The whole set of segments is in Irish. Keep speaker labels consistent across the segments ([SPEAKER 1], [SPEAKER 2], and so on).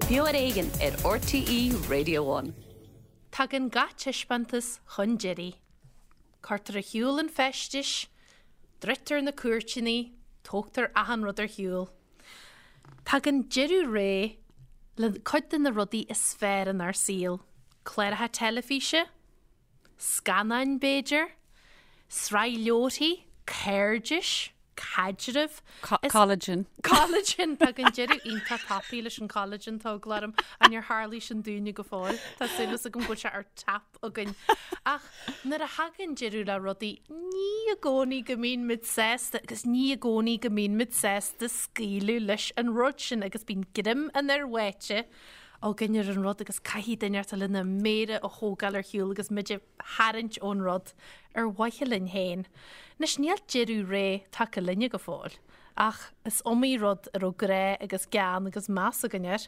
[SPEAKER 1] Beo ar Éigean ar RTÉ Radio One.
[SPEAKER 2] Tagann gach taispeántas chun deiridh. Cuirtear ar shiúl an feisteas, druidtear na cúirteanna, tógtar achan rud ar shiúl. Tagann deireadh ré le cuid de na rudaí is fearr inár saol, cláracha teilifíse, scannáin b'fhéidir, sraith leabharthaí, cairdis, caidrimh.
[SPEAKER 3] Collagen.
[SPEAKER 2] Collagen! Tagann deireadh iontach tapaidh leis an collagen, tá eagla orm. Ach níor tharlaigh sin dúinne go fóill. Tá súil agam go bhfuil sé ar tap againn. Ach nuair a thagann deireadh le rudaí, ní i gcónaí go mbíonn muid sásta agus ní i gcónaí go mbíonn muid sásta scaoileadh leis an rud sin agus bíonn greim an fhir bháite againn ar an rud agus caithfidh duine inteacht lena méara a thógáil ar shiúl agus muid a tharraingt ón rud ar mhaithe linn féin. Anois níl deireadh ré tagtha linne go fóill ach is iomaí rud a raibh grá agus gean agus meas againn air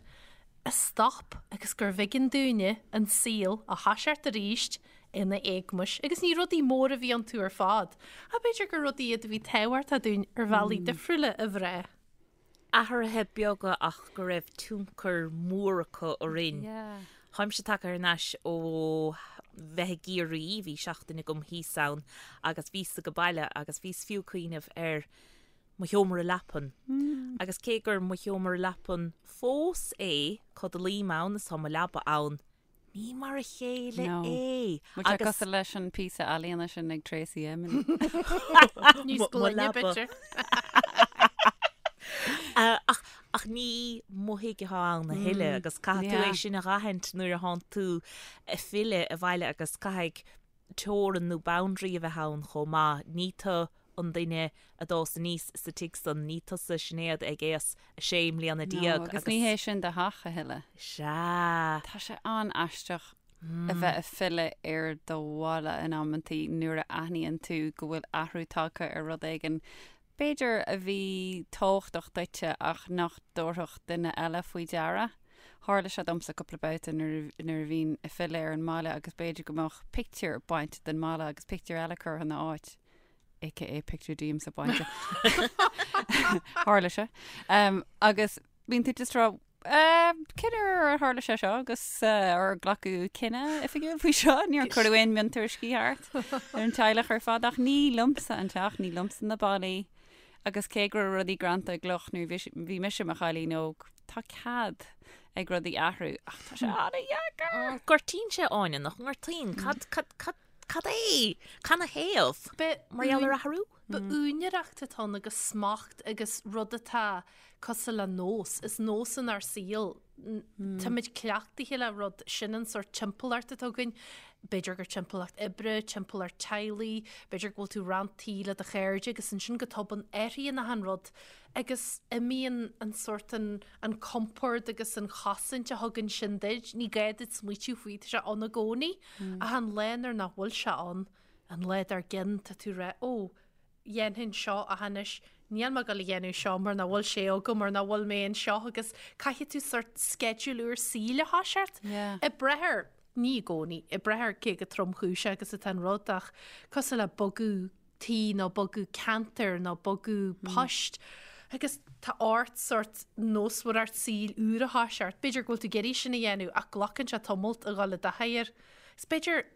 [SPEAKER 2] a stop agus gurbh éigean dúinne an saol a thoiseacht arís ina éagmais. Agus ní rudaí móra a bhí iontu ar fad, ach b'fhéidir gur rudaí iad a bhí tábhachtach dúinn ar bhealaí difriúla a bhrath.
[SPEAKER 4] Athruithe beaga ach go raibh tionchar mór acu orainn. Táimse tagtha thar n-ais ó bheith i gCiarraí, bhí seachtain agam thíos ann agus bhíos ag baile agus bhíos fiú ag cuimhneamh ar mo sheomra leapan. Agus cé gur mo sheomra leapan fós é, codlaím ann is tá mo leaba ann, ní mar a chéile
[SPEAKER 3] No.
[SPEAKER 4] é.
[SPEAKER 3] Bhfuil sé cosúil leis an píosa ealaíona sin ag Tracey Emin.
[SPEAKER 2] Níos
[SPEAKER 4] Mo
[SPEAKER 2] glaine,
[SPEAKER 4] leaba.
[SPEAKER 2] b'fhéidir.
[SPEAKER 4] Ach, ach ní mo thigh atá ann a thuilleadh agus caithfidh tú é
[SPEAKER 3] Yeah.
[SPEAKER 4] sin a dh'aithint nuair a thánn tú ag filleadh abhaile agus caithfidh teorainn nó boundary a bheith ann chomh maith. Ní tu an duine a d'fhás aníos sa tigh san, ní tusa Sinéad ag aois a sé mbliana
[SPEAKER 3] No,
[SPEAKER 4] déag
[SPEAKER 3] agus ní hé sin do theach a thuilleadh.
[SPEAKER 4] Sea.
[SPEAKER 3] Tá sé an-aisteach a bheith ag filleadh ar do bhaile in amantaí nuair a aithníonn tú go bhfuil athrú tagtha ar rud éigin, b'fhéidir a bhí tábhachtach duitse ach nach dtabharfadh duine eile faoi deara. Tharla sé domsa cúpla babhta nuair nuair a bhínn ag filleadh ar an mbaile agus b'fhéidir go mbeadh pictiúr bainte den mballa agus pictiúr eile curtha ina áit. AKA pictiúr díomsa bainte. Tharla sé. Um, agus bíonn tú just ag rá, Uh, cén uair a tharla sé seo agus uh, ar glacadh cinneadh oifigiúil faoi seo, níor cuireadh aon mhiontuairiscí thart ar an teaghlach ar fad ach ní liomsa an teach, ní liomsa na ballaí agus cé go raibh rudaí greanta i gcloch nuair a bhí mise i mo chailín óg, tá cead ag rudaí athrú ach tá sé an-dheacair.
[SPEAKER 4] Gortaíonn sé Áine, nach ngortaíonn? Cad, cad, cad, cad é? Canathaobh? Mar gheall ar athrú?
[SPEAKER 2] Ba úinéireacht atá ann agus smacht agus rud atá cosúil le nós. Is nós inár saol. Táimid cleachtaithe le rud, sin an sórt timpeallacht atá againn. B'fhéidir gur timpeallacht oibre, timpeallacht teaghlaigh, b'fhéidir go bhfuil tú roinnt tí le do chairde agus ansin go tobann athraíonn achan rud agus imíonn an sórt an, an compord agus an chosaint a thugann sin duit. Ní gá duit smaoitiú faoi, tá sé ann i gcónaí. Ach an lá nuair nach bhfuil sé ann, An lá dár gcionn tá tú ag rá, ó, dhéanfainn seo ach anois níl mé ag dul a dhéanamh seo mar nach bhfuil sé agam mar nach bhfuil mé anseo agus caithfidh tú sórt sceideal úr saoil a thoiseacht.
[SPEAKER 3] Yeah.
[SPEAKER 2] Ag brath ar, ní i gcónaí, ag brath ar cé chomh tromchúiseach agus atá an rud ach cosúil le bogadh tí nó bogadh ceantair nó bogadh poist agus tá ort sórt nósmhaireacht saoil úr a thoiseacht. B'fhéidir go bhfuil tú ag iarraidh sin a dhéanamh ach glacann sé tamalt a dhul i dtaithí air. Is b'fhéidir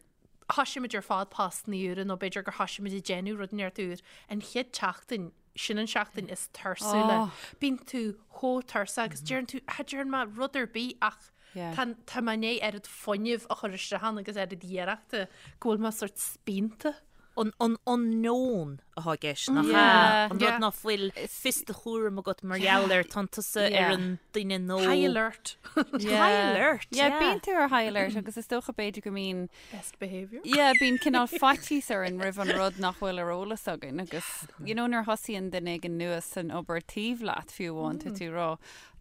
[SPEAKER 2] thoisigh muid ar fad postanna úra nó b'fhéidir gur thoisigh muid ag déanamh rud inteacht úr an chéad tseachtain, sin an seachtain is tuirsiúla.
[SPEAKER 3] Oh.
[SPEAKER 2] Bíonn tú chomh tuirseach agus deireann tú, cha dtearn mé rud ar bith ach
[SPEAKER 3] Yeah.
[SPEAKER 2] tá tá mé i ndiaidh oiread fuinnimh a chur isteach ann agus oiread iarrachta go bhfuil mé sort spíonta.
[SPEAKER 4] An an unknown atá i gceist, nach ea?
[SPEAKER 3] Yeah.
[SPEAKER 4] An
[SPEAKER 2] Yeah.
[SPEAKER 4] rud ná fuil fios do chúram agat mar gheall air, tánn tusa
[SPEAKER 3] Yeah.
[SPEAKER 4] ar an duine nó...
[SPEAKER 2] High alert.
[SPEAKER 4] High alert,
[SPEAKER 3] Yeah,
[SPEAKER 4] yeah.
[SPEAKER 3] bíonn tú ar high alert agus is dócha b'fhéidir go mbíonn
[SPEAKER 2] Best behaviour.
[SPEAKER 3] Yeah, bíonn cineál faitíos orainn roimh an rud nach bhfuil ar eolas againn agus you know nuair a thosaíonn duine éigin nua san obair taobh leat fiú amháin tá tú ag rá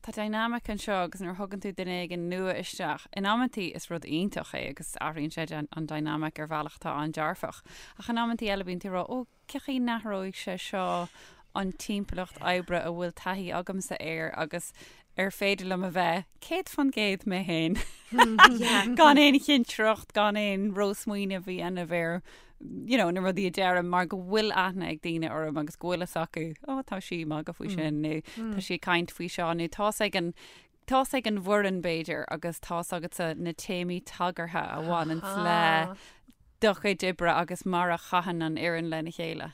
[SPEAKER 3] tá dynamic anseo agus nuair a thugann tú duine éigin nua isteach in amantaí is rud iontach é agus athraíonn sé an dynamic ar bhealach atá an-dearfach ach in amantaí eile bíonn tú ag rá ó cén chaoi a n-athróidh sé seo an timpeallacht oibre a bhfuil taithí agamsa air agus ar féidir liom a bheith 100% mé féin gan aon chinsireacht, gan aon rósmaoineamh a dhéanamh ar you know, na rudaí a deirim mar go bhfuil aithne ag daoine orm agus go bhfuil fhios acu, ó tá sí ag magadh faoi sin nó tá sí ag caint faoi seo nó tá's ag an. Tá's ag an bhfoireann b'fhéidir agus tá's agatsa na téamaí tagartha a bhaineanns le do chuid oibre agus mar a chaitheann an fhoireann lena chéile.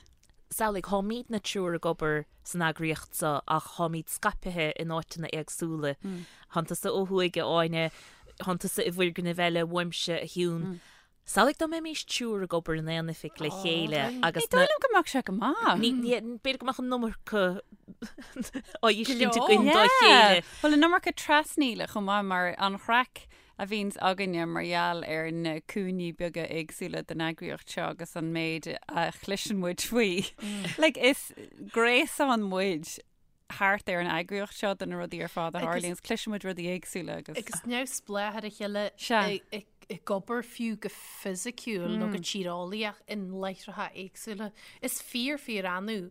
[SPEAKER 4] Samhlaigh, táimidne triúr ag obair san eagraíocht seo ach táimid scaipthe in áiteanna éagsúla. Tánn tusa ó thuaidh, a Áine, tánn tusa i bhfoirgneamh eile uaimse, a Shiún. Samhlaigh dá mbeimis triúr ag obair in aon oifig le chéile agus
[SPEAKER 3] Ní dóigh liom go mbeadh sé go maith.
[SPEAKER 4] Ní, ní, b'fhéidir go mbeadh an iomarca á fheiscint againn dá chéile.
[SPEAKER 3] Bhuel, an iomarca trasnaíle chomh maith mar an chraic a bhíonns againne mar gheall ar na cúinní beaga éagsúla den eagraíocht seo agus an méid a chloiseann muid faoi. Like, is gréasán muid thart ar an eagraíocht seo de na rudaí ar fad a tharlaíonn agus cloiseann muid rudaí éagsúla
[SPEAKER 2] agus. Agus neamhspleách ar a chéile ag obair fiú go fisiciúil nó go tíreolaíoch in láithreacha éagsúla. Is fíor fíor annamh,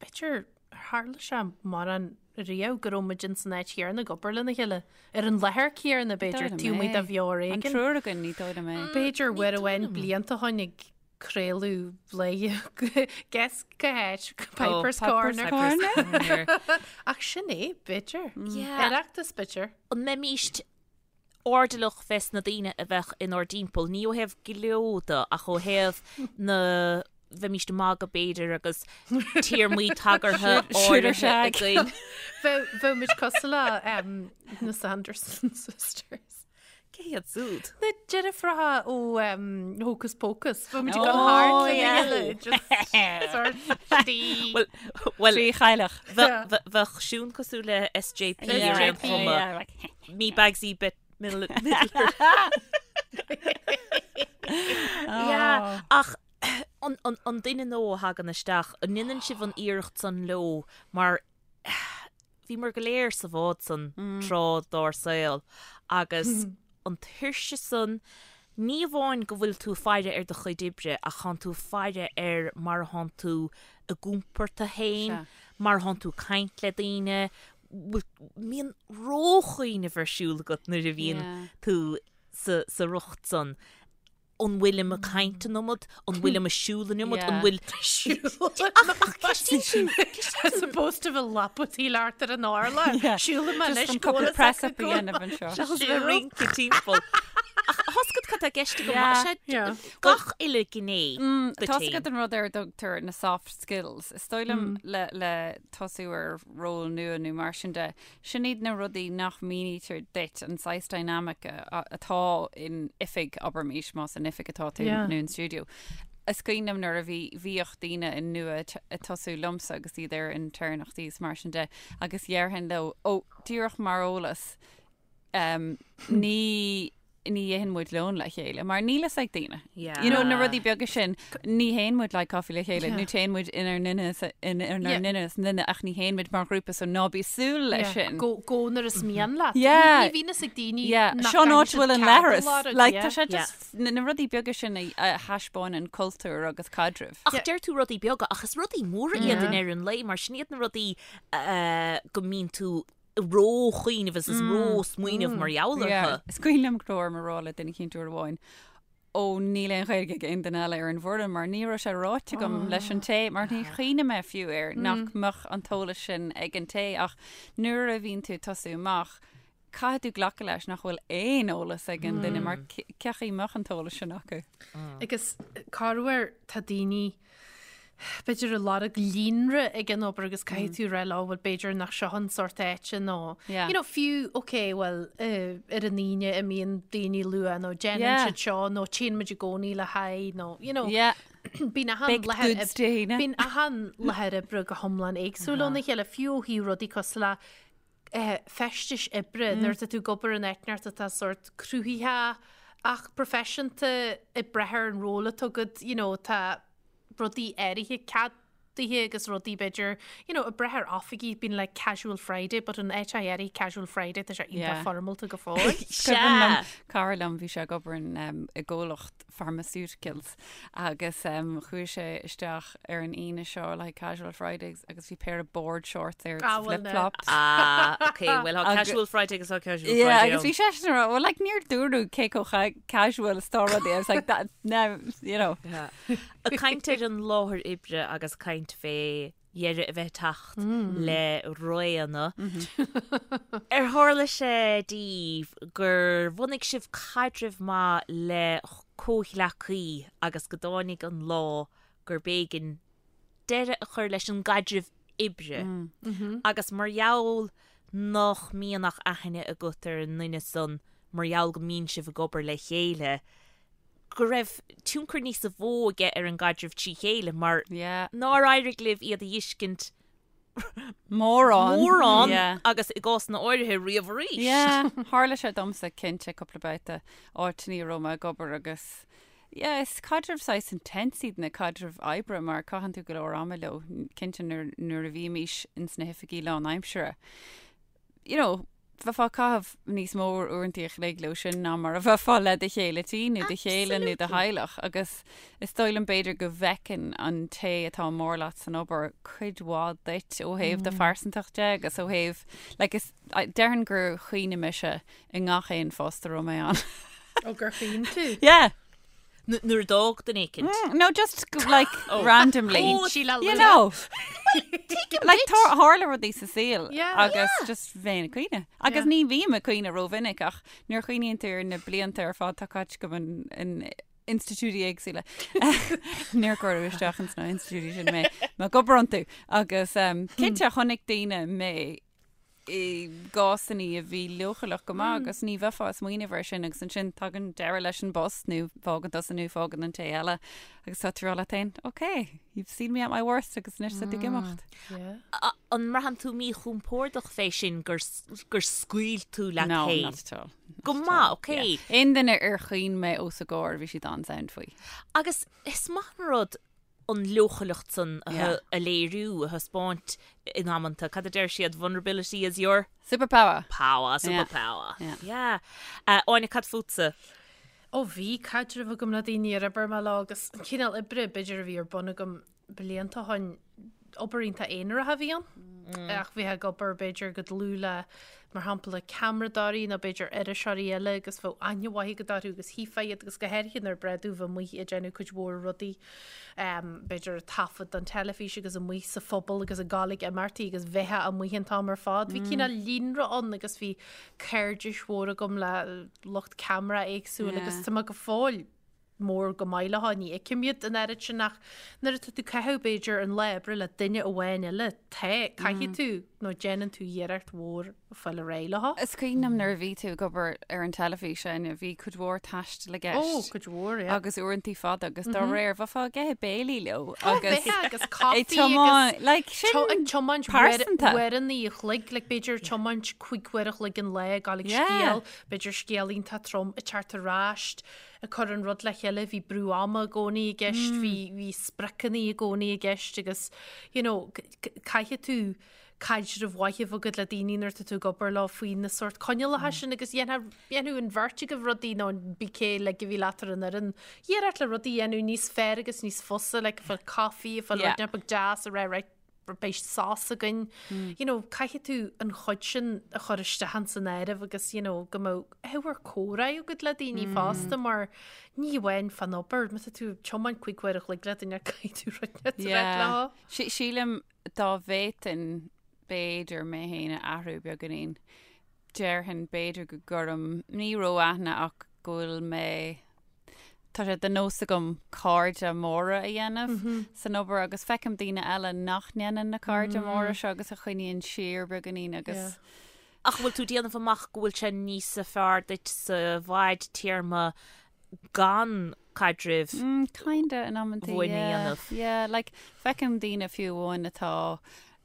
[SPEAKER 2] b'fhéidir, ar tharla sé mórán riamh go raibh muid ins an áit chéanna ag obair lena chéile, ar an láthair chéanna b'fhéidir, taobh amuigh de bheo ar
[SPEAKER 3] éigean. An triúr againn, ní dóigh liom é.
[SPEAKER 2] B'fhéidir uair amháin blianta ó shoin ag craoladh léi guess cá háit, Piper's Corner.
[SPEAKER 4] Corner.
[SPEAKER 2] Ach sin é, b'fhéidir. Yeah. Oireachtas, b'fhéidir.
[SPEAKER 4] An mbeimíst airdeallach fés na daoine a bheadh inár dtimpeall, ní ó thaobh gleo de ach ó thaobh na bheimíst ag magadh b'fhéidir agus téarmaí tagartha áirithe againn.
[SPEAKER 2] Bheadh muid cosúil le na Sanderson Sisters.
[SPEAKER 4] Cé hiad
[SPEAKER 2] súd? Na deirfiúracha ó Hocus Pocus. Bheadh muid ag dul thart lena chéile. Just sort
[SPEAKER 4] of. Well, well,
[SPEAKER 3] Trí chailleach.
[SPEAKER 4] Bheadh Siún cosúil le SJP ar aon chuma. Me Bagsy Bette Midler. Yeah, ach an duine nua a thagann isteach, an ndéanann sibh an iarracht san leo mar bhíomar go léir sa bhád san tráth dár saol agus an tuirse san, ní amháin go bhfuil tú ag faire ar do chuid oibre ach thánn tú ag faire ar mar a thánn tú ag iompar tú féin, mar a thánn tú ag caint le daoine, mbíonn róchuimhneamh ar siúl agat nuair a bhíonn tú sa riocht san. An bhfuilim ag caint an iomad? An bhfuilim ag siúl an iomad? An bhfuil
[SPEAKER 2] Ach ceistíonn tú As opposed to bheith lapadaíl thart ar an urlár. Siúlfaidh mé anois
[SPEAKER 3] Just cúpla press up a dhéanamh anseo.
[SPEAKER 4] Seachas bheith ag rince timpeall. Ach tá's agat cad tá i gceist agam, sé gach uile gné
[SPEAKER 3] duit Tá's agat an rud ar a dtugtar na soft skills. Is dóigh liom le tosú ar ról nua nó mar sin de, Sin iad na rudaí nach mínítear duit, an saghas dynamic atá in oifig, abraimis, más in oifig atá tú nó in stiúideo. Is cuimhin liom nuair a bhí, bhíodh daoine nua ag tosú liomsa agus iad ar intéirneachtaí is mar sin de agus dhéarfainn leo, ó, díreach mar eolas, ní, ní itheann muid lón le chéile, mar níl fhios ag daoine.
[SPEAKER 4] Yeah.
[SPEAKER 3] You know, na rudaí beaga sin, ní théann muid le caife le chéile, nó téann muid inár nduine is inár nduine is nduine, ach ní théann muid mar ghrúpa, so ná bí ag súil leis sin.
[SPEAKER 2] Go, go nuair is mian leat.
[SPEAKER 3] Yeah.
[SPEAKER 2] Ní bhíonn fhios ag daoine
[SPEAKER 3] Yeah.
[SPEAKER 2] nach
[SPEAKER 3] Seo an áit
[SPEAKER 2] gcaithfidh
[SPEAKER 3] bhfuil
[SPEAKER 2] siad
[SPEAKER 3] an
[SPEAKER 2] cead a
[SPEAKER 3] leithreas.
[SPEAKER 2] lorg,
[SPEAKER 3] Like,
[SPEAKER 2] yeah.
[SPEAKER 3] tá sé just, na na rudaí beaga sin a a thaispeánann cultúr agus caidreamh.
[SPEAKER 4] Ach deir tú rudaí beaga, ach is rudaí móra iad i ndeireadh an lae, mar sin iad na rudaí go mbíonn tú ró-chuimhneamh is is ró-smaoineamh mar gheall orthu.
[SPEAKER 3] Is cuimhin liom go raibh orm a rá le duine eicínt uair amháin, ó níl aon Ghaeilge ag aon duine eile ar an bhfoireann mar ní raibh sé ráite agam leis an té, mar ní chuimhnigh mé fiú air nach mbeadh an t-eolas sin ag an té ach nuair a bhíonn tú ag tosú amach, caithfidh tú glacadh leis nach bhfuil aon eolas ag an duine mar cé chaoi mbeadh an t-eolas sin acu.
[SPEAKER 2] Agus corruair tá daoine b'fhéidir ag lorg líonra ag an obair agus caithfidh tú rá leo, bhuel b'fhéidir nach seo an sórt áite nó
[SPEAKER 3] Yeah.
[SPEAKER 2] you know, fiú ok bhuel eh, ar an Aoine imíonn daoine luath nó déanann
[SPEAKER 3] Yeah.
[SPEAKER 2] siad seo nó téann muid i gcónaí le haghaidh nó you know,
[SPEAKER 3] Yeah.
[SPEAKER 2] bíonn achan
[SPEAKER 3] Baked
[SPEAKER 2] láthair
[SPEAKER 3] goods Dé hAoine.
[SPEAKER 2] bíonn achan láthair oibre go hiomlán éagsúil óna chéile fiú ó thaobh rudaí cosúil le eh, feistis oibre nuair atá tú ag obair in áit inteacht atá sórt cruthaitheach ach proifisiúnta ag brath ar an ról atá agat, you know, tá rudaí áirithe ceadaithe agus rudaí b'fhéidir, you know, ag brath ar oifigí, bíonn like casual Friday, but in áit áirithe casual Friday tá sé iontach
[SPEAKER 3] Yeah.
[SPEAKER 2] foirmeálta go fóill.
[SPEAKER 3] Is cuimhin liom cara liom bhí sé ag obair in, um, i gcomhlacht pharmaceuticals agus um, chuaigh sé isteach ar an Aoine seo le casual Friday agus bhí péire board shorts air
[SPEAKER 2] Ah, well,
[SPEAKER 3] flip flops.
[SPEAKER 4] Ah, ok, well tá
[SPEAKER 3] Agus-
[SPEAKER 4] casual Friday agus tá casual
[SPEAKER 3] Yeah,
[SPEAKER 4] Friday
[SPEAKER 3] agus bhí
[SPEAKER 4] ann.
[SPEAKER 3] sé sin rá, well, like, níor dúradh cé chomh casual is atá rudaí. I was like, that, now, you know.
[SPEAKER 4] Yeah. Ag caint ar an láthair oibre agus caint fé dheireadh a bheith ag teacht le réanna. Ar tharla sé daoibh gur bhunaigh sibh caidreamh maith le comhghleacaí agus go dtáinig an lá gurb éigean deireadh a chur leis an gcaidreamh oibre agus mar gheall nach mbíonn ach aithne agat ar an nduine san mar gheall go mbíonn sibh ag obair le chéile, go raibh tionchar níosa mhó aige ar an gcaidreamh trí chéile mar nár éirigh libh iad a fheiscint
[SPEAKER 3] mórán
[SPEAKER 4] mórán agus i gcásanna áirithe riamh arís.
[SPEAKER 3] Yeah, tharla sé domsa cinnte cúpla babhta áiteanna a raibh mé ag obair agus yeah, is caidreamh saghas intense iad na caidrimh oibre mar caitheann tú go leor ama leo, cinnte nuair nuair a bhímís ins na hoifigí lánaimsire. You know, bheifeá ag caitheamh níos mó uaireanta a chloig leo sin ná mar a bheifeá le do chéile tí nó do chéile nó do theaghlach agus is dóigh liom b'fhéidir go bhfeiceann an té atá mór leat san obair cuid mhaith duit ó thaobh do phearsantacht de agus ó thaobh like is déarfainn gur chaoin mise i ngach aon phost a raibh mé ann.
[SPEAKER 2] Ó gur chaoin tú?
[SPEAKER 3] Yeah.
[SPEAKER 4] Nuair a d'fhág duine éicint.
[SPEAKER 3] No, just like randomly.
[SPEAKER 2] Oh, Síle
[SPEAKER 3] You know. Like tharla rudaí sa saol agus just bheinn ag caoineadh. Agus ní bhím ag caoineadh rómhinic ach nuair a chuimhníonn tú ar na blianta ar fad atá caite agam in institiúidí éagsúla. Níor cuireadh isteach ins na institiúidí sin mé mé ag obair iontu. Agus cinnte chonaic daoine mé i gcásanna a bhí leochaileach go maith agus ní bheifeá ag smaoineamh air sin agus ansin tagann deireadh leis an bpost nó fágann tusa nó fágann an té eile agus tá tú ag rá leat féin, ok, you've seen me at my worst agus anois tá tú ag imeacht.
[SPEAKER 4] An mbraitheann tú míchompordach fé sin gur gur scaoil tú leat
[SPEAKER 3] No,
[SPEAKER 4] féin?
[SPEAKER 3] not at all.
[SPEAKER 4] Go maith, ok.
[SPEAKER 3] Aon duine ar chaoin mé os a gcomhair bhí siad an-sound faoi.
[SPEAKER 4] Agus is maith an rud an leochaileacht san a léiriú, a thaispeáint in amanta. Cad a deir siad? Vulnerability is your.
[SPEAKER 3] Superpower.
[SPEAKER 4] Power, superpower. Yeah. Áine, cad fútsa?
[SPEAKER 2] Ó bhí caidreamh agam le daoine ar oibir mé leo agus an cineál oibre b'fhéidir a bhí ar bun agam blianta ó shin, obair iontach aonarach a bhí ann. Ach bheifeá ag obair b'fhéidir go dlúth le, mar shampla, ceamaradóirí nó b'fhéidir iriseoirí eile agus bheadh aithne mhaith agat orthu agus thuigfeá iad agus go háirithe nuair ba ghnách bheith amuigh ag déanamh cuid mhór rudaí, b'fhéidir ag taifead don teilifís agus amuigh sa phobal agus ag gabháil ag imeachtaí agus bheifeá amuigh an t-am ar fad. Bhí cineál líonra ann agus bhí cairdis mhór agam le lucht ceamara éagsúil agus tá mé go fóill mór go maith leo, ní fheicim iad an oiread sin ach nuair atá tú ag caitheamh b'fhéidir an lá oibre le duine amháin eile, tá, caithfidh tú nó déanann tú iarracht mhór fáil ar aghaidh leo.
[SPEAKER 3] Is cuimhin liom nuair a bhí tú ag obair ar an teilifís, Áine, bhí cuid mhór taistil i gceist.
[SPEAKER 2] Ó, cuid mhór, yeah.
[SPEAKER 3] Agus uaireantaí fada agus dá réir, bheifeá ag ithe béilí leo
[SPEAKER 2] agus Bheifeá agus caife agus
[SPEAKER 3] like, sin
[SPEAKER 2] ag tiomáint
[SPEAKER 3] pearsanta.
[SPEAKER 2] uaireanna a chloig, like b'fhéidir tiomáint 5 uair a chloig an lá ag gabháil ag scéal, b'fhéidir scéal iontach trom ag teacht ar ais, ag cur an rud le chéile, bhí brú ama i gcónaí i gceist, bhí, bhí spriocanna i gcónaí i gceist agus, you know, caithfidh tú caidreamh mhaith a bheith agat le daoine nuair atá tú ag obair leo faoi na sórt coinníollacha sin agus dhéanfadh an bheirt agaibh rudaí nó pé cé like a bhí leat ar an fhoireann, iarracht le rudaí a dhéanamh níos fearr agus níos fusa, like ag fáil caife, ag fáil rud beag deas a rá right, beidh sos againn. You know, caithfidh tú an chuid sin a chur isteach ins an áireamh agus, you know, go mbeadh ábhar comhrá agat le daoine fosta mar ní amháin fán obair, má tá tú ag tiomáint 5 uair a chloig le duine caithfidh tú rud a rá leo.
[SPEAKER 3] Sílim dá bhféadfainn b'fhéidir mé féin a athrú beagáinín, déarfainn b'fhéidir go gcuirim, ní ró-aithne ach go bhfuil mé, tá sé de nós agam cairde móra a dhéanamh san obair agus feicim daoine eile nach ndéanann na cairde móra seo agus a choinníonn siar beagáinín agus.
[SPEAKER 4] Ach bhfuil tú ag déanamh amach go bhfuil sé níosa fearr duit sa bhfadtéarma gan caidrimh
[SPEAKER 3] Kinda in amantaí,
[SPEAKER 4] bhuana a
[SPEAKER 3] yeah.
[SPEAKER 4] dhéanamh?
[SPEAKER 3] Yeah, like feicim daoine fiú amháin atá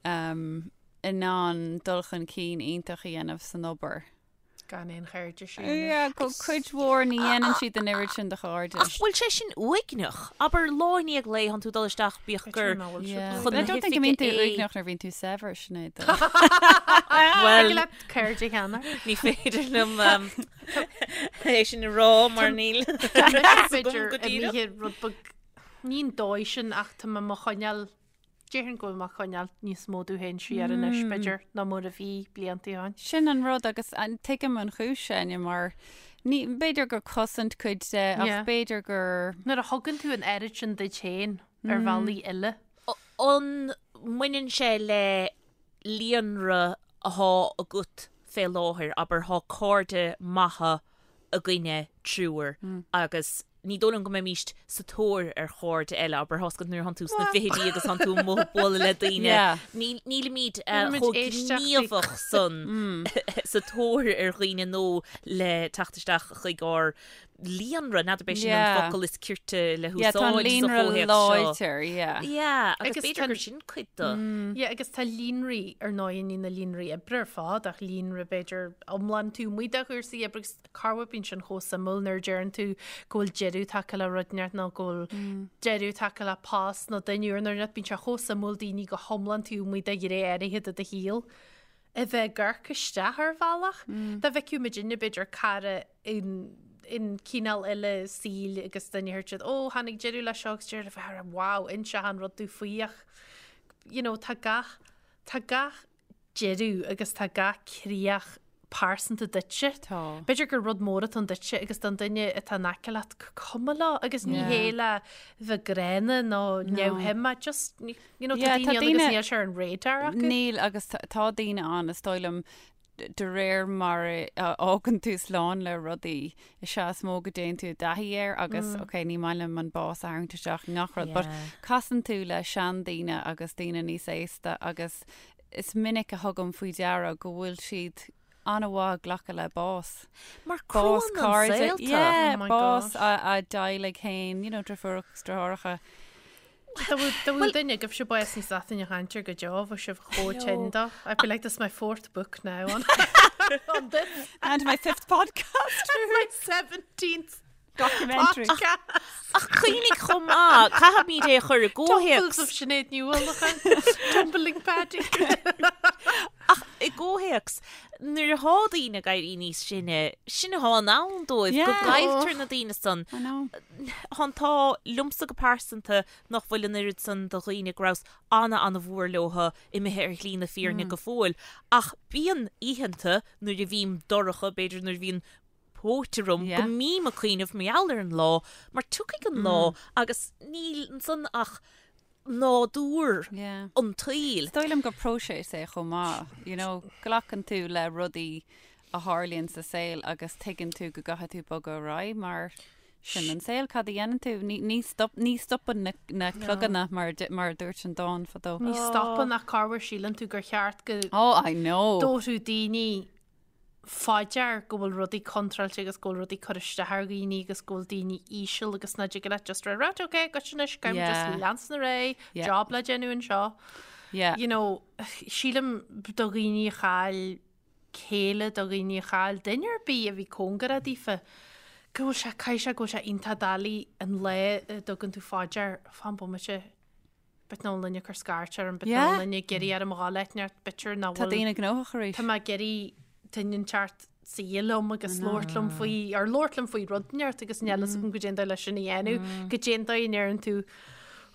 [SPEAKER 3] um, in ann dul chun cinn iontach a dhéanamh san obair.
[SPEAKER 2] Gan aon chairde sin.
[SPEAKER 3] Yeah, go cuid mhór ní dhéanann siad an oiread sin de chairde.
[SPEAKER 4] Ach bhfuil sé sin uaigneach? Abair lá i ndiaidh lae tánn tú ag dul isteach bíodh gur
[SPEAKER 3] chun na
[SPEAKER 4] hoifige
[SPEAKER 3] I don't think go mbíonn tú
[SPEAKER 4] é.
[SPEAKER 3] uaigneach nuair a bhíonn tú saibhir, Sinéad.
[SPEAKER 4] Bhuel,
[SPEAKER 2] leat cairde cheana.
[SPEAKER 4] ní féidir liom é sin a rá mar níl fhios agam go díreach.
[SPEAKER 2] Imithe rud beag ní an dóigh sin ach tá mé mo choinneáil Déarfainn go bhfuil mé ag coinneáil níos mó domh féin siar anois, b'fhéidir, ná mar a bhí blianta ó shin.
[SPEAKER 3] Sin an rud agus tuigim an chúis, Áine, mar ní, b'fhéidir gur cosaint cuid de ach
[SPEAKER 2] Yeah.
[SPEAKER 3] b'fhéidir gur.
[SPEAKER 2] Nuair a thugann tú an oiread sin duit féin ar bhealaí eile.
[SPEAKER 4] An mbaineann sé le líonra athá agat fé láthair, abair, thá cairde maithe againne triúr agus ní dóigh liom go mbeimíst sa tóir ar chairde eile, abair, tá's agat nuair a thánn tú sna fichidí agus thánn tú amuigh ag bualadh le daoine, nílimid chomh gníomhach san sa tóir ar dhaoine nó le teacht isteach chuig ár líonra, n'fheadar ab é sin an focal is cirte le
[SPEAKER 3] húsáid sa
[SPEAKER 4] chomhthéacs
[SPEAKER 3] seo. Láidir, yeah.
[SPEAKER 4] Yeah, agus b'fhéidir gur sin cuid de.
[SPEAKER 2] Yeah, agus tá líonraí, ar ndóigh, ní na líonraí oibre ar fad, ach líonra b'fhéidir iomlán taobh amuigh de chúrsaí oibre agus corruair bíonn sin chomh suimiúil nuair a deireann tú go bhfuil deireadh tagtha le rud inteacht nó go bhfuil deireadh tagtha le post nó duine úr nó rud, bíonn sé chomh suimiúil daoine go hiomlán taobh amuigh de ghné áirithe de do shaol. a bheith ag amharc isteach ar bhealach. Dá bhfeicfeadh muidinne, b'fhéidir, cara in in cineál eile saoil agus dá ndéarfadh siad, ó, tháinig deireadh leis seo agus deireadh le bheith wow, inis achan rud domh faoi ach you know, tá gach, tá gach deireadh agus tá gach críoch pearsanta duitse.
[SPEAKER 3] Tá.
[SPEAKER 2] B'fhéidir gur rud mór atá ann duitse agus don duine atá in aice leat cuma leo agus ní hé le bheith gránna nó neamhshuim ach just You know, tá daoine ann agus níl sé ar an radar acu.
[SPEAKER 3] Níl agus tá daoine ann, is dóigh liom, de réir mar a fhágann tú slán le rudaí, is ea is mó go dtéann tú i dtaithí air agus, mm. ok, ní maith liom an bás a tharraingt isteach i ngach rud, but casann tú le seandaoine agus daoine níos aosta agus is minic a thugaim faoi deara go bhfuil siad an-mhaith ag glacadh le bás.
[SPEAKER 4] Mar bás
[SPEAKER 3] cairde, yeah, oh bás a dteaghlaigh féin, you know, deirfiúracha agus deartháireacha.
[SPEAKER 2] Dá bhfuil duine agaibhse bás níos leathan a chaint ar go deo, bheadh sibh chomh tinn dó. I feel like this is my fourth book now on, on this.
[SPEAKER 3] And my fifth podcast.
[SPEAKER 2] my 17th
[SPEAKER 3] documentary.
[SPEAKER 2] Podcast.
[SPEAKER 4] Ach cuimhnigh chomh maith, caithfimid é a chur i
[SPEAKER 2] gcomhthéacs. Tumbles of Sinéad Ní Uallacháin. Tumbling Paddy.
[SPEAKER 4] Ach i gcomhthéacs, nuair atá daoine ag éirí níos sine, sin atá in ann dóibh, go gcailltear na daoine san.
[SPEAKER 3] I know.
[SPEAKER 4] Tá an t-ádh liomsa go pearsanta nach bhfuil an oiread san de dhaoine go rabhas ana-ana-mhór leotha imithe ar shlí na fírinne go fóill. Ach bíonn oícheanta nuair a bhím dorcha, b'fhéidir nuair a bhíonn póit orm, go mbím ag cuimhneamh mar gheall ar an lá, mar tiocfaidh an lá agus níl ansan ach nádúr an tsaoil.
[SPEAKER 3] Is dóigh liom gur próiseas é chomh maith, you know, glacann tú le rudaí a tharlaíonn sa saol agus tuigeann tú go gcaithfidh tú bogadh ar aghaidh mar sin an saol, cad a dhéanann tú? Ní, ní stop, ní stopann na, na cloganna mar, mar a dúirt an dán fadó.
[SPEAKER 2] Ní stopann ach corruair síleann tú gur cheart go
[SPEAKER 3] Oh, I know.
[SPEAKER 2] dtabharfadh daoine fá dear go bhfuil rudaí contráilte agus go bhfuil rudaí cur isteach ar dhaoine agus go bhfuil daoine íseal agus ná dtig leat just rá right ok goitse anois caithfidh muid just leanstan ar aghaidh, job le déanamh anseo.
[SPEAKER 3] Yeah.
[SPEAKER 2] You know, sílim do dhaoine a chaill céile, do dhaoine a chaill duine ar bith a bhí cóngarach daofa, go bhfuil sé, caithfidh sé go bhfuil sé iontach doiligh an lá a dtugann tú fá dear, fan bomaite, b'fhéidir nach bhfuil duine ag cur scairt orm, b'fhéidir nach bhfuil duine ag iarraidh orm a dhul áit inteacht, b'fhéidir nach
[SPEAKER 3] Tá
[SPEAKER 2] bhfuil,
[SPEAKER 3] daoine gnóthach arís.
[SPEAKER 2] tá mé ag iarraidh duine inteacht suí liom agus labhairt liom faoi, ar labhairt liom faoi rud inteacht agus níl fhios agam goidé an dóigh leis sin a dhéanamh, goidé an dóigh a ndeireann tú,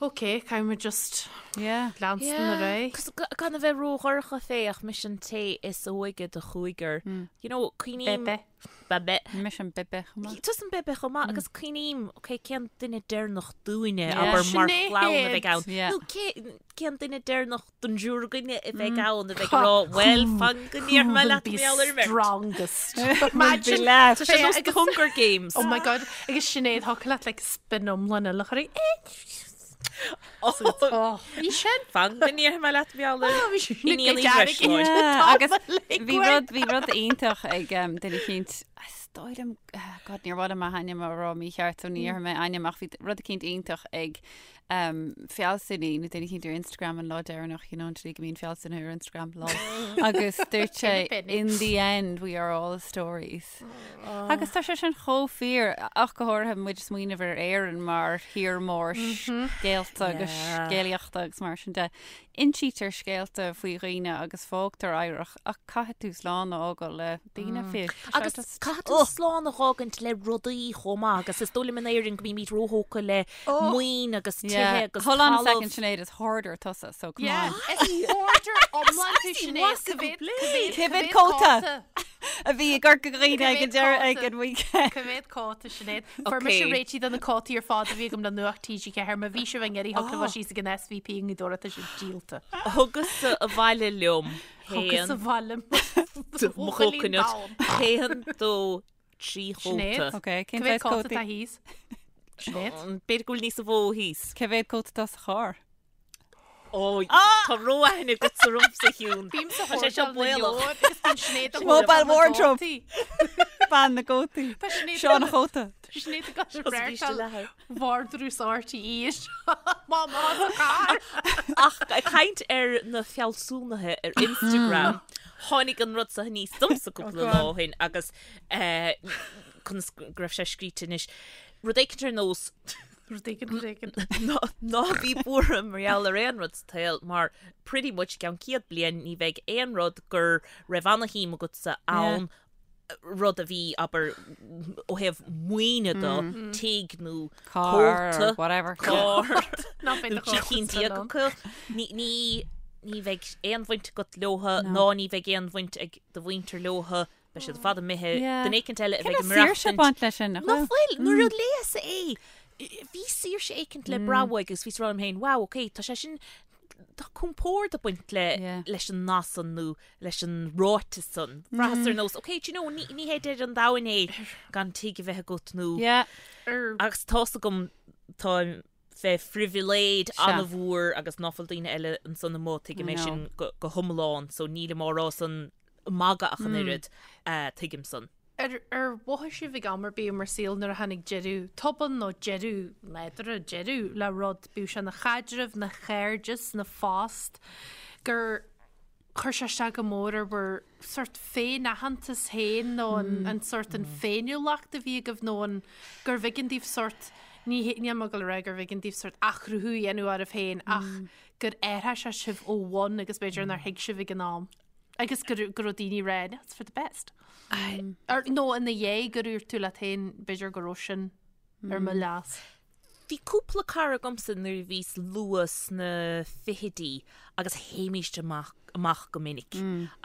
[SPEAKER 2] ok, caithfidh muid just
[SPEAKER 3] Yeah.
[SPEAKER 2] leanstan ar aghaidh.
[SPEAKER 4] Cos gan a bheith ródhorcha fé ach mise an té is óige de chúigear. You know, cuimhním...
[SPEAKER 2] Bebe.
[SPEAKER 4] Bebe.
[SPEAKER 3] Mise an bebe chomh maith.
[SPEAKER 4] Tusa an bebe chomh maith agus cuimhním, ok, cén duine deireanach dúinne, abair, mar chlann a bheidh ann. Nó cé, cén duine deireanach den dtriúr againne a bheidh ann a bheidh ag rá, bhuel, fan go ndéarfaidh mé leat mar gheall ar an mbeirt.
[SPEAKER 2] Strongest.
[SPEAKER 4] Imagine. Tá sé nós The Hunger Games.
[SPEAKER 2] Oh my God. Agus Sinéad, thiocfadh leat like spin iomlán eile a chur air. Bhí sin.
[SPEAKER 4] Fan go ndéarfaidh mé leat mar gheall ar
[SPEAKER 2] Bhí sin
[SPEAKER 4] Iníon Uí Bhreisleáin.
[SPEAKER 3] Yeah, agus bhí rud bhí rud iontach ag um, duine eicínt is dóigh liom ah, God níor mhaith liom a hainm a rá mícheart so ní dhéarfaidh mé ainm ach bhí rud eicínt iontach ag um, fealsúnaí nó duine eicínt ar Instagram an lá deireanach you know, an tslí go mbíonn fealsúnaithe ar Instagram lol. agus dúirt sé in the end we are all stories. Agus tá sé sin chomh fíor, ach go háirithe muid ag smaoineamh ar Éirinn mar thír mór scéalta agus scéalaíochta agus mar sin de. Insítear scéalta faoi dhaoine agus fágtar oidhreacht ach caithfidh tú slán a fhágáil le daoine fiú.
[SPEAKER 4] Agus caithfidh tú slán a fhágaint le rudaí chomh maith agus is dóigh liom in Éirinn go mbímid róthógtha le maoin agus tithe agus
[SPEAKER 3] Hold on a second Sinéad, is hoarder tusa so come on.
[SPEAKER 2] Is hoarder iomlán tú Sinéad,
[SPEAKER 3] Cá mhéad cóta? a bhí i gCorca Dhuibhne ag an deireadh ag an weekend.
[SPEAKER 2] Cá mhéad cóta Sinéad? Fuair mise réitithe de na cótaí ar fad a bhí agam le Nuacht TG4. Má bhí sibh ag iarraidh thig libh síos ag an SVP i nGaoth Dobhair tá siad díolta.
[SPEAKER 4] Thugas-sa abhaile liom
[SPEAKER 2] Thugas
[SPEAKER 4] haon
[SPEAKER 2] abhaile
[SPEAKER 4] mo chóconut haon dó 3
[SPEAKER 2] Sinéad.
[SPEAKER 4] chóta.
[SPEAKER 3] Ok, cén
[SPEAKER 2] Cá mhéad
[SPEAKER 3] saghas
[SPEAKER 2] cóta
[SPEAKER 3] cótaí?
[SPEAKER 2] atá thíos? Sinéad?
[SPEAKER 4] B'fhéidir go bhfuil níos mó thíos.
[SPEAKER 3] Cá mhéad cóta atá sa charr?
[SPEAKER 4] Ó, tá ró-aithne agatsa ormsa, a Shiún.
[SPEAKER 2] Bím sa
[SPEAKER 4] Tá sé seo
[SPEAKER 2] hotel na
[SPEAKER 4] baolach.
[SPEAKER 2] leabhar agus bíonn Sinéad ag
[SPEAKER 3] Mobile
[SPEAKER 2] tógáil na
[SPEAKER 3] wardrobe.
[SPEAKER 2] gcótaí.
[SPEAKER 3] Bean na gcótaí.
[SPEAKER 2] Tá Sinéad
[SPEAKER 3] Seo an chóta.
[SPEAKER 2] Tá Sinéad ag gabháil
[SPEAKER 4] Seo sa bhíste
[SPEAKER 2] reáchtáil
[SPEAKER 4] leathair.
[SPEAKER 2] vardrús RTÉ Má má sa charr.
[SPEAKER 4] Ach ag caint ar na fealsúnaithe ar Instagram, tháinig an rud seo aníos domsa cúpla lá ó shin agus conas go raibh sé scríte anois. Rud éicint ar nós
[SPEAKER 2] Rud éigin, rud éigin.
[SPEAKER 4] Ná bí buartha mar gheall ar aon rud sa tsaol mar pretty much i gceann 100 bliain ní bheidh aon rud go raibh ana-shuim agatsa ann, rud a bhí, abair, ó thaobh maoine de, tigh nó
[SPEAKER 3] Carr
[SPEAKER 4] cóta,
[SPEAKER 3] or whatever.
[SPEAKER 4] carr
[SPEAKER 2] Ná beidh
[SPEAKER 4] nó
[SPEAKER 2] do chóta
[SPEAKER 4] 13
[SPEAKER 2] sa lón.
[SPEAKER 4] acu. Ní, ní, ní bheidh aon bhaint agat leotha ná ní bheidh aon bhaint ag do mhuintir leotha. Beidh siad ar fad imithe.
[SPEAKER 3] Yeah.
[SPEAKER 4] Duine éicint eile a bheidh
[SPEAKER 3] Cén
[SPEAKER 4] ag
[SPEAKER 3] saoirse
[SPEAKER 4] maireachtaint.
[SPEAKER 3] baint leis sin, nach
[SPEAKER 4] Nach
[SPEAKER 3] bhfuil?
[SPEAKER 4] bhfuil? Nuair a léas é, bhí saoirse éicint le brath uaidh agus bhíos ag rá liom féin, wow, ok, tá sé sin, tá compord ag baint le,
[SPEAKER 3] Yeah.
[SPEAKER 4] leis an nath san nó leis an ráiteas san. Bhraitheas ar nós, ok, do you know, ní, ní hé deireadh an domhain é gan tigh a bheith agat nó,
[SPEAKER 3] Yeah.
[SPEAKER 2] Ar
[SPEAKER 4] agus tá's agam, táim fé phribhléid
[SPEAKER 3] Sea.
[SPEAKER 4] an-mhór agus ná fuil daoine eile ansan amuigh, tuigim
[SPEAKER 3] I
[SPEAKER 4] é
[SPEAKER 3] know.
[SPEAKER 4] sin go, go hiomlán, so nílim á rá san magadh ach an oiread, tuigim san.
[SPEAKER 2] Ar ar mhothaigh sibh ag am ar bith i bhur saol nuair a tháinig deireadh tobann nó deireadh nádúrtha, deireadh le rud, bíodh sé ina chaidreamh, ina chairdeas, ina phost, gur chuir sé isteach go mór ar bhur sórt féin-aitheantas féin nó an an sórt an féiniúlacht a bhí agaibh nó an gurbh éigean daoibh sórt, ní níl mé ag dul a rá gurbh éigean daoibh sórt athchruthú a dhéanamh oraibh féin ach gur athraigh sé sibh ó bhun agus b'fhéidir nár thuig sibh ag an am. Agus go raibh daoine ag rá, that's for the best. Or, nó ina dhiaidh gur dhúirt tú leat féin, b'fhéidir go raibh sin ar mo leas.
[SPEAKER 4] Bhí cúpla cara agamsa nuair a bhíos luath sna fichidí agus théimíst amach amach go minic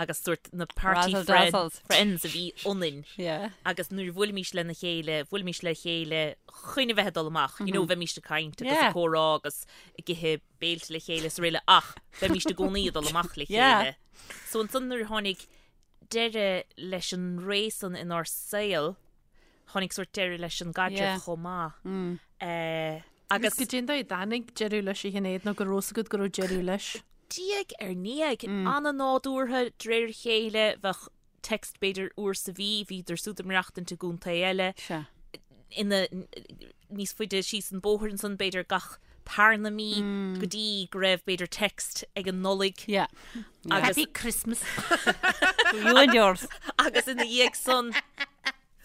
[SPEAKER 4] agus sórt na party
[SPEAKER 3] Razzle
[SPEAKER 4] friend,
[SPEAKER 3] dazzles.
[SPEAKER 4] friends a bhí ionainn
[SPEAKER 3] Yeah.
[SPEAKER 4] agus nuair a bhuailimís lena chéile, bhuailimís le chéile chun a bheith ag dul amach, you know, bheimíst ag caint agus
[SPEAKER 3] Yeah.
[SPEAKER 4] ag comhrá agus ag ithe béilte le chéile is araile ach bheimíst i gcónaí ag dul amach le chéile. So ansan nuair a tháinig deireadh leis an ré san inár saol, tháinig sórt deireadh leis an gcaidreamh chomh maith.
[SPEAKER 2] Mm. Agus goidé an dóigh a dtáinig deireadh leis a Shinéad nó go raibh 's agat go raibh deireadh leis.
[SPEAKER 4] Diaidh ar ndiaidh, an-nádúrtha, de réir a chéile, bheadh text b'fhéidir uair sa mhí, bhíodar siúd ag maireachtaint i gcontae eile.
[SPEAKER 3] Sea.
[SPEAKER 4] ina níos faide síos an bóthar ansan b'fhéidir gach tarna mí go dtí go raibh b'fhéidir text ag an Nollaig.
[SPEAKER 3] Yeah.
[SPEAKER 4] Agus,
[SPEAKER 2] Happy Christmas.
[SPEAKER 3] You and yours.
[SPEAKER 4] agus ina dhiaidh san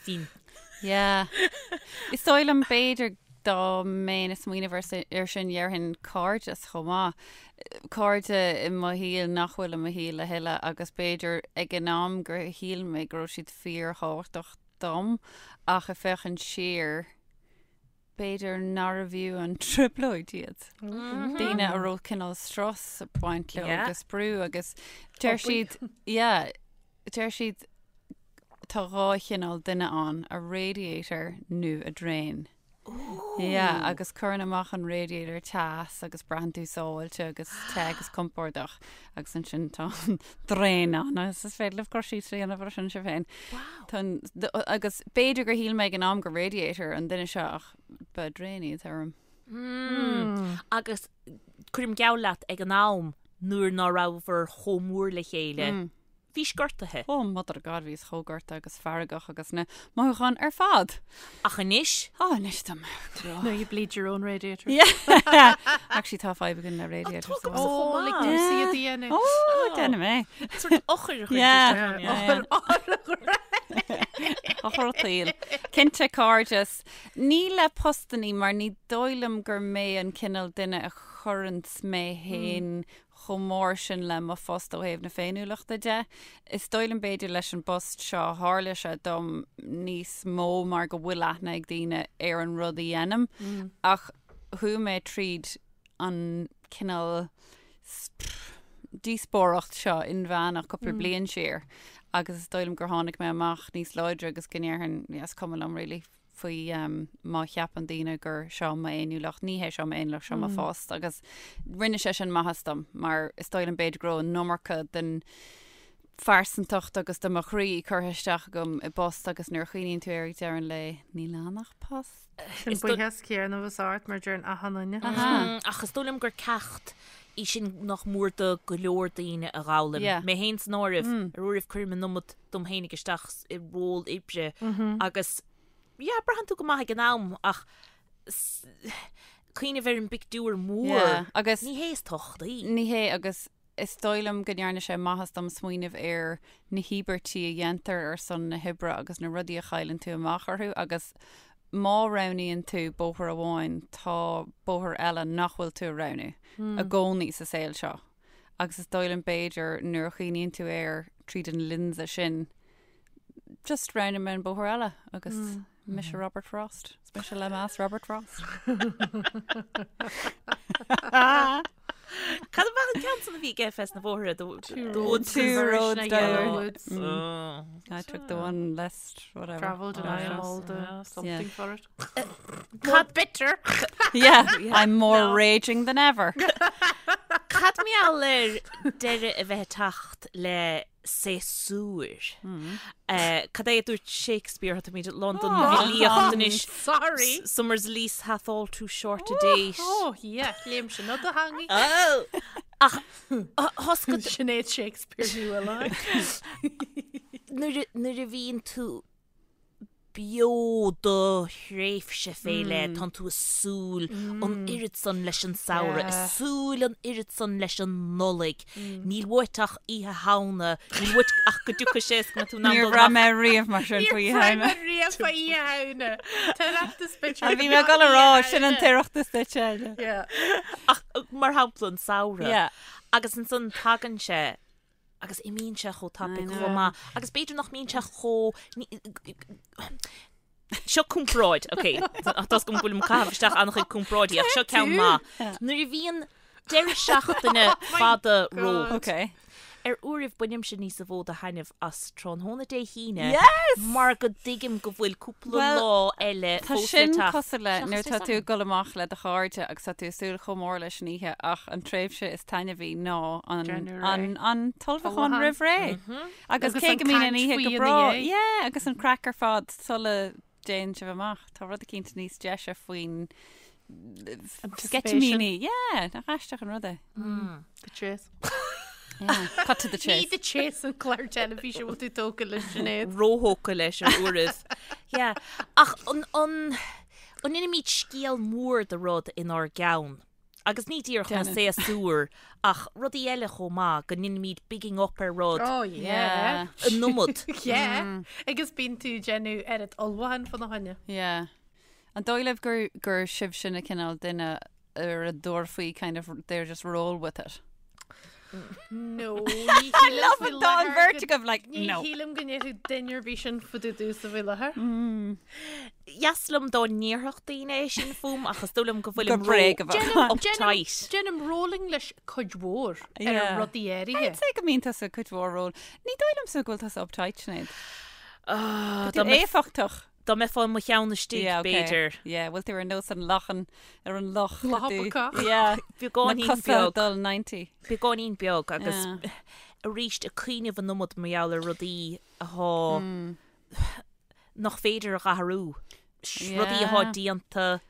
[SPEAKER 4] bhí
[SPEAKER 3] Yeah. Is dóigh liom b'fhéidir dá mbeinn ag smaoineamh ar sin dhéarfainn cairdeas chomh maith. Cairde i mo shaol nach bhfuil i mo shaol a thuilleadh agus b'fhéidir ag an am gur shíl mé go raibh siad fíorthábhachtach dom ach ag féachaint siar, b'fhéidir nárbh fhiú an trioblóid iad. Daoine a raibh cineál strus ag baint leo agus brú agus deir siad, yeah, deir siad tá dhá chineál duine ann, a radiator nó a drain. Yeah, agus cuireann amach an radiator teas agus braitheann tú sábháilte agus te agus compordach agus ansin tá an drain ann agus is féidir libh cur síos a dhéanamh ar sin sibh féin. Tá an- d- agus b'fhéidir gur shíl mé ag an am gur radiator an duine seo ach ba drain iad orm.
[SPEAKER 4] Agus cuirim geall leat ag an am nuair ná rabhabhair chomh mór le chéile. Bhís gortaithe.
[SPEAKER 3] Oh mother of God, bhíos chomh gortaithe agus feargach agus na mothúcháin ar fad.
[SPEAKER 4] Ach anois?
[SPEAKER 3] Oh, anois tá mé grá.
[SPEAKER 2] Now you bleed your own radiator.
[SPEAKER 3] Yeah. Actually tá fadhb againn le radiators.
[SPEAKER 4] Tá
[SPEAKER 2] Oh,
[SPEAKER 4] chomh
[SPEAKER 2] like
[SPEAKER 4] maith.
[SPEAKER 2] tú sí a dhéanamh.
[SPEAKER 3] Oh, déanfaidh mé.
[SPEAKER 4] Sort eochair a chuir
[SPEAKER 3] Yeah.
[SPEAKER 4] isteach ann, yeah.
[SPEAKER 3] Eochair an tsaoil. Cinnte cairdeas. Ní le postannaí mar ní dóigh liom gur mé an cineál duine a chuireanns mé féin chomh mór sin le mo phost ó thaobh na féiniúlachta de. Is dóigh liom b'fhéidir leis an bpost seo tharla sé dom níos mó mar go bhfuil aithne ag daoine ar an rud a dhéanaim ach chuaigh mé tríd an cineál díospóireacht seo inmheánach cúpla bliain siar. Agus is dóigh liom gur tháinig mé amach níos láidre agus go ndéarfainn, yeah, is cuma liom really faoi má cheapann daoine gur seo m'fhéiniúlacht, ní hé seo m'fhéiniúlacht, seo mo phost. Agus rinne sé sin maitheas dom mar is dóigh liom b'fhéidir go raibh an iomarca den phearsantacht agus de mo chroí curtha isteach agam i bpost agus nuair a chuimhníonn tú air ag deireadh an lae, níl ann ach post.
[SPEAKER 2] Sin buíochas céanna bhus ort mar deireann achan duine.
[SPEAKER 4] Ach is dóigh liom gur ceacht í sin nach mór do go leor daoine a dh'fhoghlaim. Mé féin san áireamh, ar uairibh cuirim an iomad dom féinig isteach i ról oibre agus yeah, braitheann tú go maith ag an am ach cuimhneamh ar an bpictiúr mór,
[SPEAKER 3] agus
[SPEAKER 4] ní hé is tábhachtaí.
[SPEAKER 3] Ní hé agus Is dóigh liom go ndearna sé maitheas dom smaoineamh ar na híobairtí a dhéantar ar son na hoibre agus na rudaí a chailleann tú amach orthu agus má roghnaíonn tú bóthar amháin tá bóthar eile nach bhfuil tú a roghnú i gcónaí sa saol seo. Agus is dóigh liom b'fhéidir nuair a chuimhníonn tú air tríd an lionsa sin just roghnaigh mé an bóthar eile agus Mise Robert Frost. Is mise le meas Robert Frost.
[SPEAKER 4] Cad ab ea an ceann san a bhí aige fés na bóithre? The
[SPEAKER 3] the woods. Two roads down. Woods.
[SPEAKER 4] Oh.
[SPEAKER 3] I took the one less whatever.
[SPEAKER 2] Travelled and I am all the something for it.
[SPEAKER 4] Cad
[SPEAKER 2] bitter.
[SPEAKER 3] Yeah, I'm more raging than ever.
[SPEAKER 4] Cad mar gheall ar deireadh a bheith ag teacht le séasúir. Cad é a dúirt Shakespeare, tá muid lán den bhfilíocht anois.
[SPEAKER 2] Sorry!
[SPEAKER 4] Summer's lease hath all too short a date.
[SPEAKER 2] Oh, yeah, léim sin ó do theangaidh.
[SPEAKER 4] Oh! Ach, thosca...
[SPEAKER 2] Sinéad Shakespeare ní bhfuil ann.
[SPEAKER 4] Nuair a bhíonn tú beo do thréimhse fé leith, tánn tú ag súil an oiread san leis an samhradh, ag súil an oiread san leis an Nollaig. Níl uait ach Oíche Shamhna, níl uait ach go dtiocfaidh sé is go mbeidh tú in ann
[SPEAKER 3] Níor
[SPEAKER 4] dul
[SPEAKER 3] bhraith
[SPEAKER 4] amach.
[SPEAKER 3] mé riamh mar sin faoi
[SPEAKER 2] Níor
[SPEAKER 3] Oíche
[SPEAKER 2] bhraith
[SPEAKER 3] Shamhna.
[SPEAKER 2] mé riamh faoi Oíche Shamhna. T'Oireachtas bitch.
[SPEAKER 3] Bhí mé ag dul a rá, sin an tOireachtas duit, Áine.
[SPEAKER 2] Yeah.
[SPEAKER 4] Ach mar shampla an samhradh.
[SPEAKER 3] Yeah.
[SPEAKER 4] Agus ansan tagann sé Agus imíonn sé chomh tapaidh chomh maith. Agus b'fhéidir nach mbíonn sé chomh... Seo comparáid, ok, tá a fhios agam go bhfuilim ag caitheamh isteach an-chuid comparáidí ach seo ceann maith. Nuair a bhíonn deireadh seachtaine fada romhat,
[SPEAKER 3] Ok.
[SPEAKER 4] ar uairibh bainimse níosa mhó de thaitneamh as tráthnóna Dé hAoine
[SPEAKER 3] Yes!
[SPEAKER 4] mar go dtuigim go bhfuil cúpla
[SPEAKER 3] Well,
[SPEAKER 4] lá eile
[SPEAKER 3] Tá
[SPEAKER 4] fós le
[SPEAKER 3] sin
[SPEAKER 4] teacht.
[SPEAKER 3] cosúil le nuair
[SPEAKER 4] Seachas
[SPEAKER 3] tá
[SPEAKER 4] Dé
[SPEAKER 3] tú ag
[SPEAKER 4] Sathairn.
[SPEAKER 3] dul amach le do chairde agus tá tú ag súil chomh mór leis an oíche ach an tréimhse is taitneamhaí ná an,
[SPEAKER 2] Deireadh
[SPEAKER 3] an,
[SPEAKER 2] ré.
[SPEAKER 3] an t-ullmhúchán
[SPEAKER 2] Ullmhúchán.
[SPEAKER 3] roimh ré. Agus
[SPEAKER 2] Agus
[SPEAKER 3] cé
[SPEAKER 2] an
[SPEAKER 3] go mbíonn an
[SPEAKER 2] caint
[SPEAKER 3] oíche
[SPEAKER 2] faoi
[SPEAKER 3] go
[SPEAKER 2] ina
[SPEAKER 3] breá,
[SPEAKER 2] dhiaidh.
[SPEAKER 3] yeah, agus an craic ar fad sula dtéann sibh amach. Tá rud eicínt níos deise faoin
[SPEAKER 2] Anticipation.
[SPEAKER 3] sceitimíní. Yeah, nach aisteach an rud é.
[SPEAKER 2] The chase.
[SPEAKER 3] Yeah, cut to the
[SPEAKER 2] Ní
[SPEAKER 3] chase.
[SPEAKER 2] The Chase an clár teilifíse bhfuil tú tógtha leis Sinéad.
[SPEAKER 4] Róthógtha leis ar uairibh. Yeah. Ach an, an, an ndéanaimid scéal mór de rud inár gceann? Agus ní díreach na
[SPEAKER 3] Déanann.
[SPEAKER 4] séasúir ach rudaí eile chomh maith, go ndéanaimid bigging up ar rud
[SPEAKER 2] Oh yeah.
[SPEAKER 4] an iomad.
[SPEAKER 2] Yeah. Agus bíonn tú ag déanamh oiread ullmhúcháin fána choinne.
[SPEAKER 3] Yeah. An dóigh libh gur, gur sibhse na cineál duine ar a dtabharfaí kind of, they're just roll with it?
[SPEAKER 2] No, ní shílim
[SPEAKER 3] Love
[SPEAKER 2] faoi
[SPEAKER 3] it, tá an
[SPEAKER 2] láthair
[SPEAKER 3] bheirt
[SPEAKER 2] go-
[SPEAKER 3] agaibh like,
[SPEAKER 2] Ní
[SPEAKER 3] no.
[SPEAKER 2] shílim go ndéarfadh duine ar bith sin fá dtaobh domhsa faoi láthair.
[SPEAKER 4] Dheas liom dá ndéarfadh daoine é sin fúm ach is dóigh liom go bhfuilim
[SPEAKER 3] Gur bréag a bheadh ann.
[SPEAKER 4] uptight.
[SPEAKER 2] Déanaim rolling leis cuid mhór ar
[SPEAKER 3] Yeah.
[SPEAKER 2] rudaí áirithe.
[SPEAKER 3] I'd say go mbíonn tusa cuid mhór roll. Ní dóigh liomsa go bhfuil tusa uptight, Sinéad.
[SPEAKER 4] Ah,
[SPEAKER 3] Tá
[SPEAKER 4] dá mbeif-
[SPEAKER 3] éifeachtach.
[SPEAKER 4] Dá mbeifeá i mo cheann istigh,
[SPEAKER 3] Yeah, okay.
[SPEAKER 4] b'fhéidir.
[SPEAKER 3] Yeah, bhfuil tú ar nós an lachan ar an loch.
[SPEAKER 2] Loch
[SPEAKER 3] tú-
[SPEAKER 2] bacach.
[SPEAKER 3] Yeah.
[SPEAKER 4] Beagáinín
[SPEAKER 3] Na cosa
[SPEAKER 4] beag.
[SPEAKER 3] dul 90.
[SPEAKER 4] Beagáinín beag agus
[SPEAKER 3] Yeah.
[SPEAKER 4] arís ag cuimhneamh an iomad mar gheall ar rudaí athá
[SPEAKER 3] Hmm.
[SPEAKER 4] nach féidir a dh'athrú. Rudaí athá
[SPEAKER 3] Yeah.
[SPEAKER 4] déanta,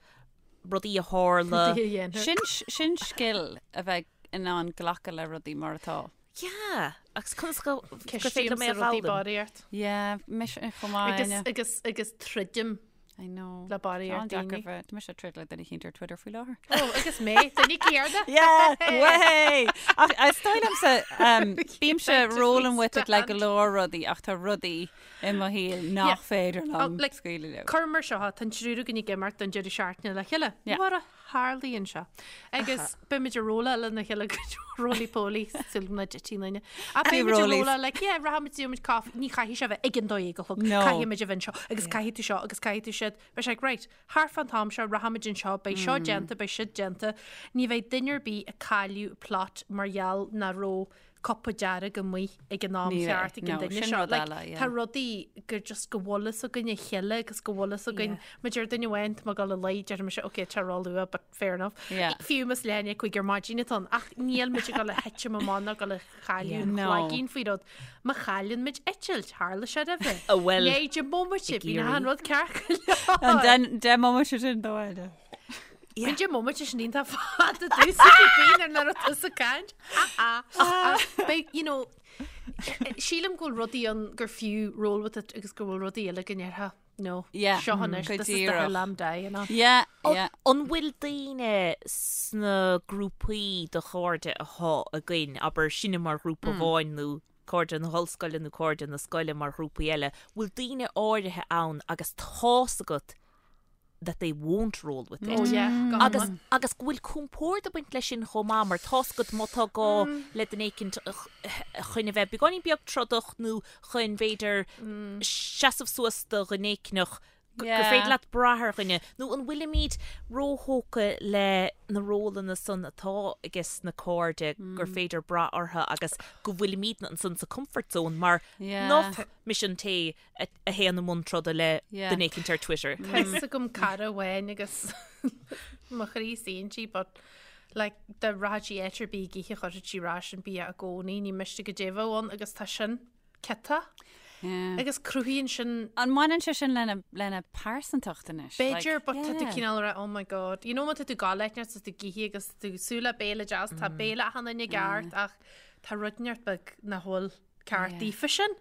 [SPEAKER 4] rudaí a tharla.
[SPEAKER 2] Rudaí a dhéantar.
[SPEAKER 3] Sin, sin scil a bheith in ann glacadh le rudaí mar atá.
[SPEAKER 4] Yeah, agus conas go gur féidir liom é
[SPEAKER 2] Ceistímse
[SPEAKER 4] a
[SPEAKER 2] rudaí
[SPEAKER 4] fhoghlaim?
[SPEAKER 2] barraíocht.
[SPEAKER 3] Yeah, mise chomh maith.
[SPEAKER 2] Agus,
[SPEAKER 3] Áine.
[SPEAKER 2] agus, agus troidim
[SPEAKER 3] I know.
[SPEAKER 2] le barraíocht
[SPEAKER 3] Tá an-deacair
[SPEAKER 2] daoine.
[SPEAKER 3] bheith- Tá mise ag troid le duine eicínt ar Twitter faoi láthair.
[SPEAKER 2] Ó, agus mé, duine céarna.
[SPEAKER 3] Yeah, way! Ach is dóigh liomsa, um, bímse rolling with it le go leor rudaí ach tá rudaí i mo shaol nach
[SPEAKER 2] Yeah.
[SPEAKER 3] féidir
[SPEAKER 2] Oh,
[SPEAKER 3] liom
[SPEAKER 2] like,
[SPEAKER 3] scaoileadh leo.
[SPEAKER 2] Cuir mar seo, tá an triúr againn ag imeacht don deireadh seachtaine le chéile.
[SPEAKER 3] Yeah.
[SPEAKER 2] Mar a tharlaíonn sé. Agus beimid ag rolláil lena chéile go roly poly súil na dtitfidh aon duine. Ach
[SPEAKER 3] Few
[SPEAKER 2] beimid ag
[SPEAKER 3] rollies.
[SPEAKER 2] rolláil like yeah rachaimid gheobhaimid caife ní chaithfidh sé bheith ag an dó dhéag a chlog
[SPEAKER 3] No.
[SPEAKER 2] caithfimid a bheith anseo agus caithfidh tú seo agus caithfidh tú siúd. Beidh sé like right thart fán t-am seo rachaimid anseo beidh seo déanta beidh siúd déanta. Ní bheidh duine ar bith ag cailleadh plot mar gheall nach raibh. cupa dearg amuigh ag an am cheart ag an duine seo. Like, tá rudaí gur just go bhfuil fhios againn a chéile agus go bhfuil fhios againn má deir duine amháin tá mé ag dul a luí, deir mise ok tá ró-luath but fair enough. Fiú más leath i ndiaidh 5 ar maidin atá ann ach níl muid ag dul a thitim amach ná ag dul a chailleadh an chloigín faoi rud. Má chailleann muid eitilt, tharla sé roimhe.
[SPEAKER 4] Bhuel,
[SPEAKER 2] Léigh deich mbomaite, bíonn achan rud ceart go leor.
[SPEAKER 3] An deich mbomaite sin dó eile.
[SPEAKER 2] Bíonn deich mbomaite sin iontach fada domhsa bíonn ar nuair atá tusa ag caint. Ach beidh, you know, sílim go bhfuil rudaí ann gur fiú roll with it agus go bhfuil rudaí eile go ndéarfá, no,
[SPEAKER 3] Yeah,
[SPEAKER 2] seo anois,
[SPEAKER 3] go
[SPEAKER 2] this is the
[SPEAKER 3] díreach.
[SPEAKER 2] hill I'm dying on.
[SPEAKER 3] Yeah, yeah.
[SPEAKER 4] An bhfuil daoine sna grúpaí de chairde atá againn, abair sinne mar ghrúpa amháin nó cairde na hollscoile nó cairde na scoile mar ghrúpaí eile, bhfuil daoine áirithe ann agus tá's agat that they won't roll with it.
[SPEAKER 2] Oh yeah, go
[SPEAKER 4] Agus,
[SPEAKER 2] hiomlán.
[SPEAKER 4] agus go bhfuil compord ag baint leis sin chomh maith mar tá's agat má tá gá le duine éicint chun a bheith beagáinín beag trodach nó chun b'fhéidir seasamh suas do dhuine éicneach gur
[SPEAKER 3] Yeah.
[SPEAKER 4] féidir leat brath ar dhuine. Nó an bhfuilimid róthógtha le na rólanna san atá ages na cairde gur féidir brath orthu agus go bhfuilimidne ansan sa comfort zone mar
[SPEAKER 3] Yeah.
[SPEAKER 4] nach mise an té a théann i mbun troda le duine éicint ar Twitter.
[SPEAKER 2] Tá fhios agam cara amháin agus mo chroí suíonn sí but like dá rachadh sí áit ar bith ag ithe chuirfeadh sí ar ais an bia i gcónaí, ní miste goidé a bheadh ann agus tá sin ciotach agus cruthaíonn sin
[SPEAKER 3] An mbaineann sé sin lena lena pearsantacht anois?
[SPEAKER 2] B'fhéidir but tá tú cineál ag rá oh my god. You know má tá tú ag gabháil áit inteacht is tú ag ithe agus tú ag súil le béile deas tá béile achan duine i gceart ach tá rud inteacht beag nach bhfuil ceart daofa sin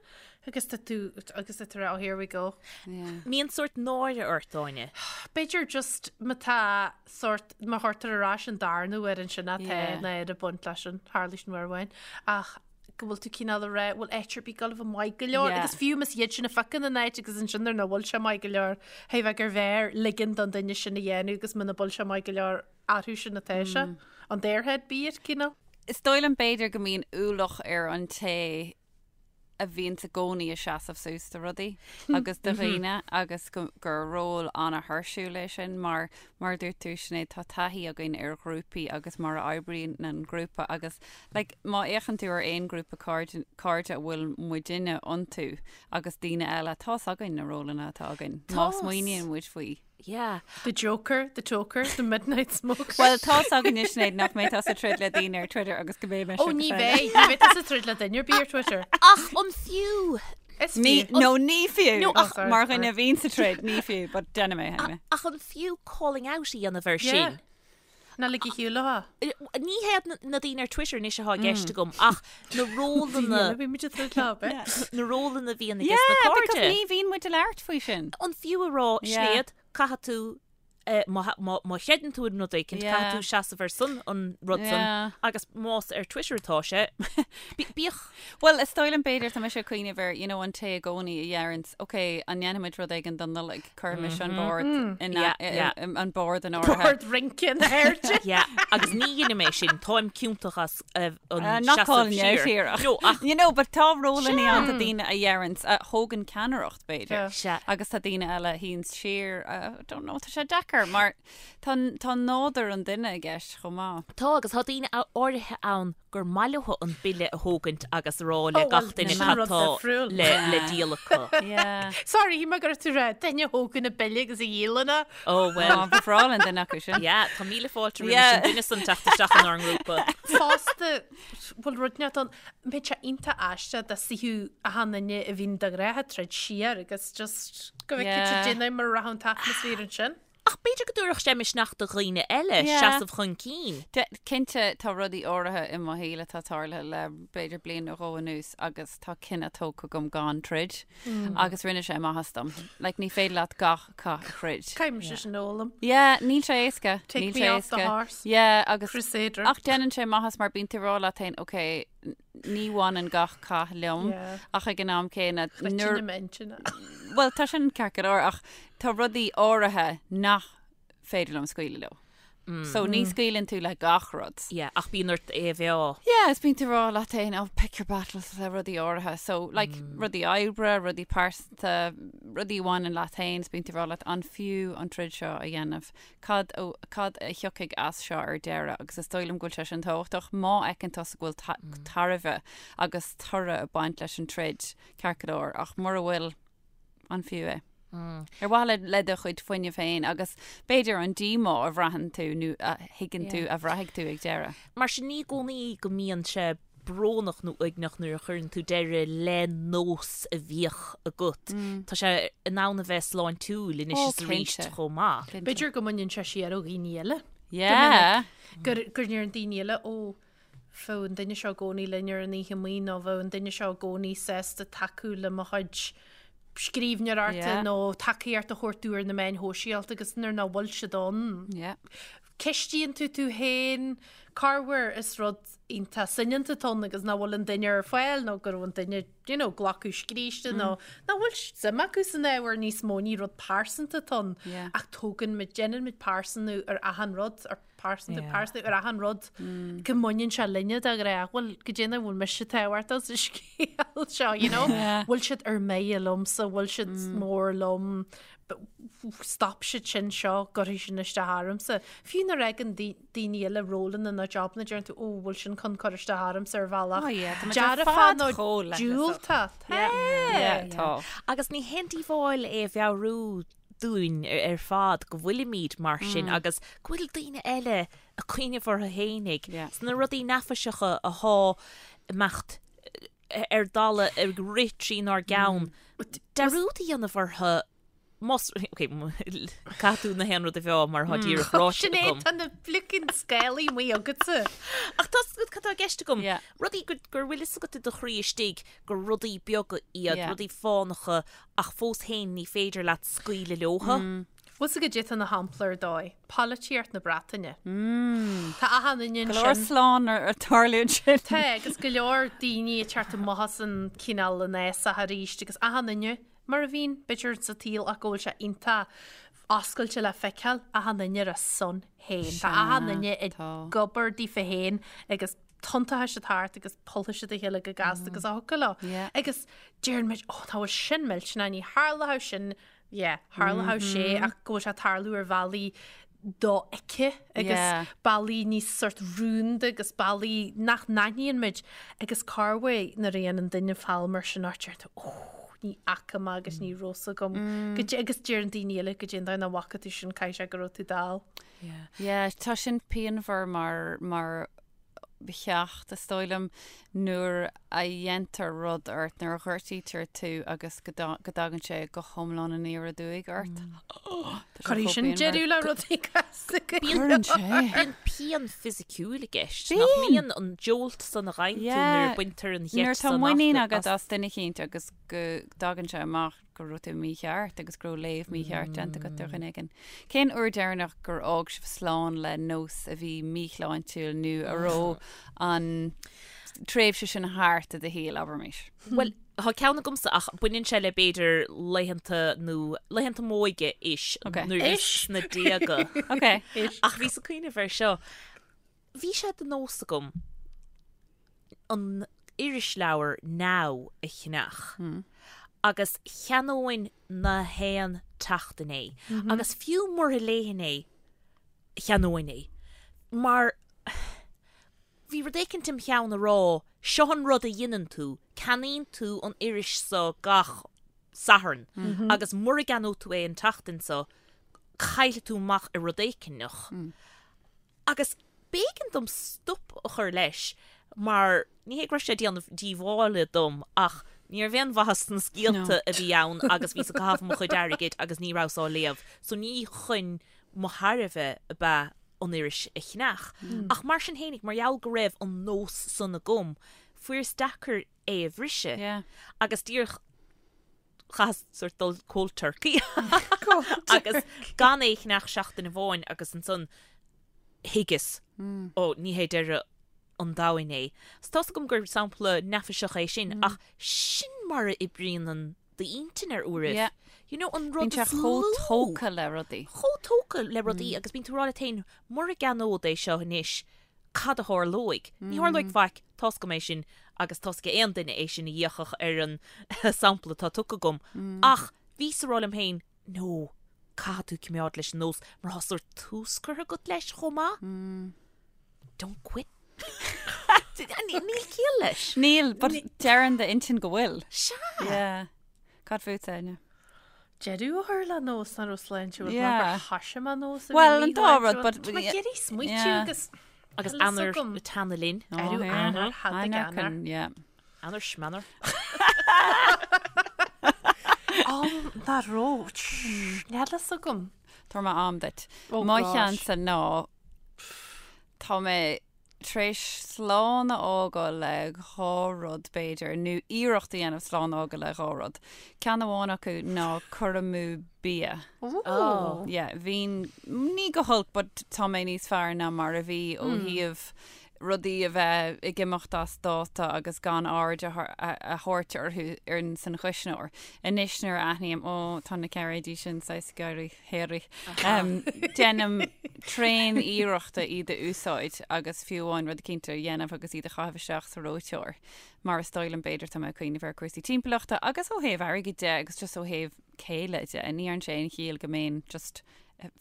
[SPEAKER 2] agus tá tú agus tá tú oh here we go.
[SPEAKER 4] Mbíonn sórt náire ort, Áine.
[SPEAKER 2] B'fhéidir just má tá sórt má chuirtear ar ais an darna huair ansin atá
[SPEAKER 3] Yeah.
[SPEAKER 2] náire ag baint leis sin tharla sin uair amháin ach go bhfuil tú cineál ag rá bhfuil áit ar bith ag gabháil a bheith maith go leor
[SPEAKER 3] Yeah.
[SPEAKER 2] agus fiú más iad sin a phiocann an áit agus ansin nuair nach bhfuil sé maith go leor hé bheith gur bhfearr ligean don duine sin a dhéanamh agus muna bhfuil sé maith go leor orthu sin atá sé on their head be it cineál.
[SPEAKER 3] Is dóigh liom b'fhéidir go mbíonn ualach ar an té a bhíonns i gcónaí ag seasamh suas do rudaí agus do dhaoine agus go, gur ról an-thuirsiúil é sin mar, mar a dúirt tú Sinéad, tá taithí againn ar ghrúpaí agus mar a oibríonn an grúpa agus like má fhéachann tú ar aon ghrúpa cairde, cairde a bhfuil muidinne iontu agus daoine eile, tá's againn na rólanna atá againn má smaoiníonn muid faoi.
[SPEAKER 4] Yeah.
[SPEAKER 2] The Joker, the Toker, the Midnight Smoker.
[SPEAKER 3] Bhuel, tá's againne Sinéad nach mbeidh tusa ag troid le daoine ar Twitter agus go mbeidh mise
[SPEAKER 2] Ó ní bheidh, ní bheidh tusa ag troid le duine ar bith ar Twitter.
[SPEAKER 4] Ach an fiú?
[SPEAKER 2] Is
[SPEAKER 3] Ní,
[SPEAKER 2] fiú.
[SPEAKER 3] no, ní fiú.
[SPEAKER 4] No, ach-
[SPEAKER 2] Oh, sorry,
[SPEAKER 3] Mar
[SPEAKER 2] sorry.
[SPEAKER 3] dhuine a bhíonn sa troid, ní fiú, but déanfaidh mé anyway.
[SPEAKER 4] Ach an fiú calling out a dhéanamh air
[SPEAKER 2] Yeah.
[SPEAKER 4] sin?
[SPEAKER 2] Ná lig a shiúl a
[SPEAKER 4] Ní hiad na daoine ar Twitter anois atá i gceist agam ach na rólanna
[SPEAKER 2] Bhí muid ag troid leo, bit.
[SPEAKER 4] na rólanna a bhíonn aige
[SPEAKER 3] Yeah,
[SPEAKER 4] sna
[SPEAKER 3] because
[SPEAKER 4] cairde.
[SPEAKER 3] ní bhíonn muid ag labhairt faoi sin.
[SPEAKER 4] An fiú a rá
[SPEAKER 3] Yeah.
[SPEAKER 4] Sinéad, caithfidh tú eh, má má má chreideann tú in rud éicint,
[SPEAKER 3] Yeah.
[SPEAKER 4] caithfidh tú seasamh ar son an rud san
[SPEAKER 3] Yeah.
[SPEAKER 4] agus más ar Twitter atá sé, bí- bíodh
[SPEAKER 3] Bhuel, is dóigh liom b'fhéidir tá mise ag cuimhneamh ar, you know, an té i gcónaí a deireanns, ok, an ndéanfaimid rud éigin don Nollaig, cuirimis an bord in
[SPEAKER 4] Yeah, yeah.
[SPEAKER 3] an bord in áirithe.
[SPEAKER 2] Bord rince in airde.
[SPEAKER 4] Yeah, agus ní dhéanfaidh mé sin, táim ciontach as eh, an
[SPEAKER 3] Uh, not
[SPEAKER 4] seasamh
[SPEAKER 3] calling you out
[SPEAKER 4] siar.
[SPEAKER 3] here.
[SPEAKER 4] No, ach
[SPEAKER 3] You know, but tá rólanna ann tá daoine a deireanns, a thógann ceannaireacht b'fhéidir.
[SPEAKER 2] Yeah.
[SPEAKER 4] Sea.
[SPEAKER 3] Agus tá daoine eile a shuíonns siar, uh, I don't know, tá sé deacair mar tá tá nádúr an duine i gceist chomh maith.
[SPEAKER 4] Tá agus tá daoine áirithe ann gur maith leo an bille a thógaint agus a rá le
[SPEAKER 2] Oh, well,
[SPEAKER 4] gach duine
[SPEAKER 2] sin
[SPEAKER 4] cad
[SPEAKER 2] rud
[SPEAKER 4] tá
[SPEAKER 2] difriúil.
[SPEAKER 4] le le díol acu.
[SPEAKER 3] Yeah.
[SPEAKER 2] Sorry, shíl mé go raibh tú ag rá duine a thógann an bille agus a dhíolann é.
[SPEAKER 4] Oh well.
[SPEAKER 3] Á, ba bhreá linn duine acu sin.
[SPEAKER 4] Yeah, tá míle fáilte roimh
[SPEAKER 3] Yeah.
[SPEAKER 4] an duine san teacht isteach inár ngrúpa.
[SPEAKER 2] Fosta, bhfuil rud inteacht ann, mbeidh sé iontach aisteach dá suífeadh achan duine a bhíonn de ghnáth ag troid siar agus just go bhfeicfidh
[SPEAKER 3] Yeah.
[SPEAKER 2] siad déanamh mar a rachadh an t-atmaisféar ansin.
[SPEAKER 4] Ach b'fhéidir go dtabharfadh sé misneach do dhaoine eile
[SPEAKER 3] Yeah.
[SPEAKER 4] seasamh chun cinn.
[SPEAKER 3] De, cinnte, tá rudaí áirithe i mo shaol atá tarlaithe le b'fhéidir bliain nó dhó anuas agus tá cinneadh tógtha agam gan troid agus rinne sé maitheas dom. Like, ní féidir leat gach cath a throid.
[SPEAKER 2] Caithfidh mise sin a fhoghlaim.
[SPEAKER 3] Yeah, níl sé éasca.
[SPEAKER 2] Take
[SPEAKER 3] níl
[SPEAKER 2] me
[SPEAKER 3] sé
[SPEAKER 2] off the
[SPEAKER 3] éasca.
[SPEAKER 2] horse.
[SPEAKER 3] Yeah, agus
[SPEAKER 2] Crusader.
[SPEAKER 3] Ach déanann sé maitheas mar bíonn tú ag rá leat féin, ok, ní bhaineann gach cath liom
[SPEAKER 2] Yeah.
[SPEAKER 3] ach ag an am céanna
[SPEAKER 2] Nuair
[SPEAKER 3] nuair
[SPEAKER 2] m'intinne.
[SPEAKER 3] Bhuel, tá sin ceart go leor ach tá rudaí áirithe nach féidir liom scaoileadh leo. So ní scaoileann tú le gach rud.
[SPEAKER 4] Yeah, ach bíonn ort é a mheá.
[SPEAKER 3] Yeah, is bíonn tú ag rá leat féin, oh, pick your battles le rudaí áirithe. So, like, rudaí oibre, rudaí pearsanta, rudaí a bhaineann leat féin, is bíonn tú ag rá leat an fiú an troid seo a dhéanamh, cad cad a thiocfaidh as seo ar deireadh agus is dóigh liom go bhfuil sé sin tábhachtach má fheiceann tusa go bhfuil tairbhe agus toradh ag baint leis an troid, ceart go leor, ach mura bhfuil, an fiú é? Ar mhaithe le do chuid fuinnimh féin agus b'fhéidir an díomá a bhraitheann tú nó a thuigeann tú a bhraithfidh tú ag deireadh.
[SPEAKER 4] Mar sin ní i gcónaí go mbíonn sé brónach nó uaigneach nuair a chuireann tú deireadh le nós a bhíodh agat. Tá sé in ann a bheith sláintiúil anois is arís chomh maith.
[SPEAKER 2] B'fhéidir go mbaineann sé siar ó dhaoine eile.
[SPEAKER 3] Yeah.
[SPEAKER 2] Gur gur ndeireann daoine eile ó bheadh an duine seo i gcónaí linn ar an oíche amuigh nó bheadh an duine seo i gcónaí sásta tacú le mo chuid scríbhneoireachta nó tacaíocht a thabhairt domh ar na meáin shóisialta agus nuair nach bhfuil siad ann.
[SPEAKER 3] Yeah.
[SPEAKER 2] Ceistíonn tú tú féin corruair is rud iontach soineanta atá ann agus nach bhfuil an duine ar fáil nó go raibh an duine you know, glacadh scríste nó nach bhfuil suim acu san ábhar níos mó ní rud pearsanta atá ann ach tógann muid déanann muid pearsanú ar achan rud ar pearsantú pearsanú ar achan rud go mbaineann sé linne de ghnáth bhfuil go déanamh bhfuil mise tábhachtach sa scéal seo you know bhfuil siad ar mire liomsa bhfuil siad mór liom stop siad sin seo gcuirfidh sin isteach ormsa. Fiú nuair a fhaigheann daoine eile rólanna nó jobanna deireann tú ó bhfuil sin chun cur isteach ormsa ar bhealach dearfach nó diúltach.
[SPEAKER 3] Tá.
[SPEAKER 4] Agus ní haon díobháil é a mheabhrú dúinn ar fad go bhfuilimid mar sin agus go bhfuil daoine eile ag cuimhneamh orthu fhéinig. Sna rudaí neafaiseacha athá ag imeacht ar dalladh ag rith trínár gceann. Dearúd a dhéanamh orthu más, ok, caithfidh tú na haon rud a mheá mar atá díreach ráite
[SPEAKER 2] Sin é,
[SPEAKER 4] agam.
[SPEAKER 2] tá na flickin scálaí amuigh agatsa.
[SPEAKER 4] Ach tá 's agat cad tá i gceist agam. Rudaí go, gur bhfuil fhios agat i do chroí istigh gur rudaí beaga iad, rudaí fánacha ach fós féin ní féidir leat scaoileadh leothu.
[SPEAKER 2] Bhfuil 's agat goidé atá ina shampla ar dóigh. Polaitíocht na Breataine. Tá achan duine
[SPEAKER 3] Go leor
[SPEAKER 2] ansin.
[SPEAKER 3] slán ar tarlú ansin.
[SPEAKER 2] Tá, agus go leor daoine ag teacht amach as an cineál an fhásach arís agus achan duine, mar a bhíonn, b'fhéidir sa tsaol ach go bhfuil sé iontach oscailte le feiceáil, achan duine ar a son féin. Tá achan duine ag obair daofa féin agus tiontóidh siad thart agus pollfaidh siad a chéile go gasta agus a thiocfadh leo. Agus deireann muid, ó, nach bhfuil sin millteanach, ní tharlódh sin yeah, tharlódh sé ach go bhfuil sé ag tarlú ar bhealaí dofheicthe agus bealaí níos sort rúnda agus bealaí nach n-aithníonn muid agus corruair nuair a dhéanann duine feall mar sin ort deir tú ó ní fhaca mé agus ní raibh 's agam mm. agus deireann daoine eile goidé an dóigh nach bhfaca tú sin caithfidh sé go raibh tú dall.
[SPEAKER 3] Yeah. Yeah, tá sin pianmhar mar mar cheacht, is dóigh liom, nuair a dhéantar rud ort, nuair a ghortaítear tú agus go dtagann sé go hiomlán aniar aduaidh ort.
[SPEAKER 2] Cuirfidh sin deireadh le rudaí
[SPEAKER 4] casta go Cuireann sé. Bíonn pian fisiciúil i gceist. Nach mbíonn an jolt san a fhaigheann tú nuair a baintear an
[SPEAKER 3] gheit san Nuair atá muinín agat as duine eicínt agus go dtagann sé amach go raibh tú mícheart agus go raibh léamh mícheart déanta agat ar dhuine éigin. Cén uair deireanach gur fhág sibh slán le nós a bhí míshláintiúil nó a raibh an tréimhse sin thart i do shaol, abraimis?
[SPEAKER 4] Bhuel, tá ceann agamsa ach baineann sé le b'fhéidir laethanta nó laethanta m'óige ish nuair a bhíos sna déaga. Ach bhíos ag cuimhneamh air seo. Bhí sé de nós agam an irisleabhar Now a cheannach agus cheannóinn na haon tseachtain é agus fiú mura léifinn é, cheannóinn é mar bhí rud éicint im cheann a rá, seo an rud a dheineann tú, ceannaíonn tú an iris so gach Satharn agus mura gceannóidh tú é an tseachtain so, caillfidh tú amach ar rud éigineach. Agus b'éigean dom stop a chur leis mar ní hé go raibh sé ag déanamh díobhála dom ach ní raibh aon mhaitheas sna scéalta a bhí ann agus bhíos ag caitheamh mo chuid airgid agus ní rabhas á léamh so ní chun mo thairbhe ab ea an iris a cheannach. Ach mar sin fhéinig, mar gheall go raibh an nós san agam, fuaireas deacair é a bhriseadh agus díreach chaitheas sort dul cold turkey agus gan é a cheannach seachtain amháin agus ansan thuigeas ó ní hé deireadh an domhain é. So tá's agam gur sampla neafaiseach é sin ach sin mar a oibríonn an d'intinn ar uairibh.
[SPEAKER 3] Yeah.
[SPEAKER 4] You know, an rud
[SPEAKER 3] Bíonn sé
[SPEAKER 4] is lú.
[SPEAKER 3] chomh tógtha le rudaí.
[SPEAKER 4] Chomh tógtha le rudaí agus bíonn tú ag rá leat féin mura gceannód é seo anois cad a tharlóidh? Ní tharlóidh faic, tá's agam é sin agus tá's ag aon duine é sin a d'fhéachfadh ar an sampla atá tugtha agam. Ach. Bhíos ag rá liom féin, no, caithfidh tú coimeád leis an nós mar tá sórt tús curtha agat leis chomh maith. Don't quit. Níl ciall leis.
[SPEAKER 3] Níl, but deireann d'intinn go bhfuil.
[SPEAKER 4] Sea.
[SPEAKER 3] Yeah. Cad fút, Áine?
[SPEAKER 2] Deireadh a chur le nós nach raibh sláintiúil
[SPEAKER 3] Yeah.
[SPEAKER 2] mar gur thoisigh mé nós a bhí
[SPEAKER 3] Well, an dá rud,
[SPEAKER 2] míshláintiúil.
[SPEAKER 3] but-
[SPEAKER 2] Tá mé ag iarraidh smaoitiú
[SPEAKER 3] Yeah.
[SPEAKER 2] agus
[SPEAKER 4] Agus
[SPEAKER 2] Tá a fhios
[SPEAKER 4] Eanáir
[SPEAKER 2] agam.
[SPEAKER 4] ag teannadh linn.
[SPEAKER 3] Oh,
[SPEAKER 2] Arú
[SPEAKER 3] yeah.
[SPEAKER 2] Eanáir, thadaig
[SPEAKER 3] Eanáir
[SPEAKER 2] Eanáir.
[SPEAKER 3] can, yeah.
[SPEAKER 4] Eanáir smeanáir.
[SPEAKER 2] Á, nach raibh. Níl a fhios agam.
[SPEAKER 3] Tabharfaidh mé am duit.
[SPEAKER 2] Oh,
[SPEAKER 3] Mo
[SPEAKER 2] gosh.
[SPEAKER 3] cheannsa ná tá mé tar éis slán a fhágáil le dhá rud b'fhéidir, nó iarracht a dhéanamh slán a fhágáil le dhá rud. Ceann amháin acu ná cur amú bia.
[SPEAKER 4] Oh.
[SPEAKER 3] Yeah, bhínn, ní go holc, but tá mé níos fearr ná mar a bhí ó thaobh rudaí a bheith ag imeacht as dáta agus gan aird a thabhairt orthu ar san chuisneoir. Anois nuair a aithním, ó, tá na cairéidí sin saghas ag éirí hairy, déanaim tréan iarrachta iad a úsáid agus fiú amháin rud eicínt a dhéanamh agus iad a chaitheamh isteach sa reoiteoir. Mar is dóigh liom b'fhéidir tá mé ag cuimhneamh ar cúrsaí timpeallachta agus ó thaobh airgid de agus just ó thaobh céille de. Ní dhearn sé aon chiall go mbeinn just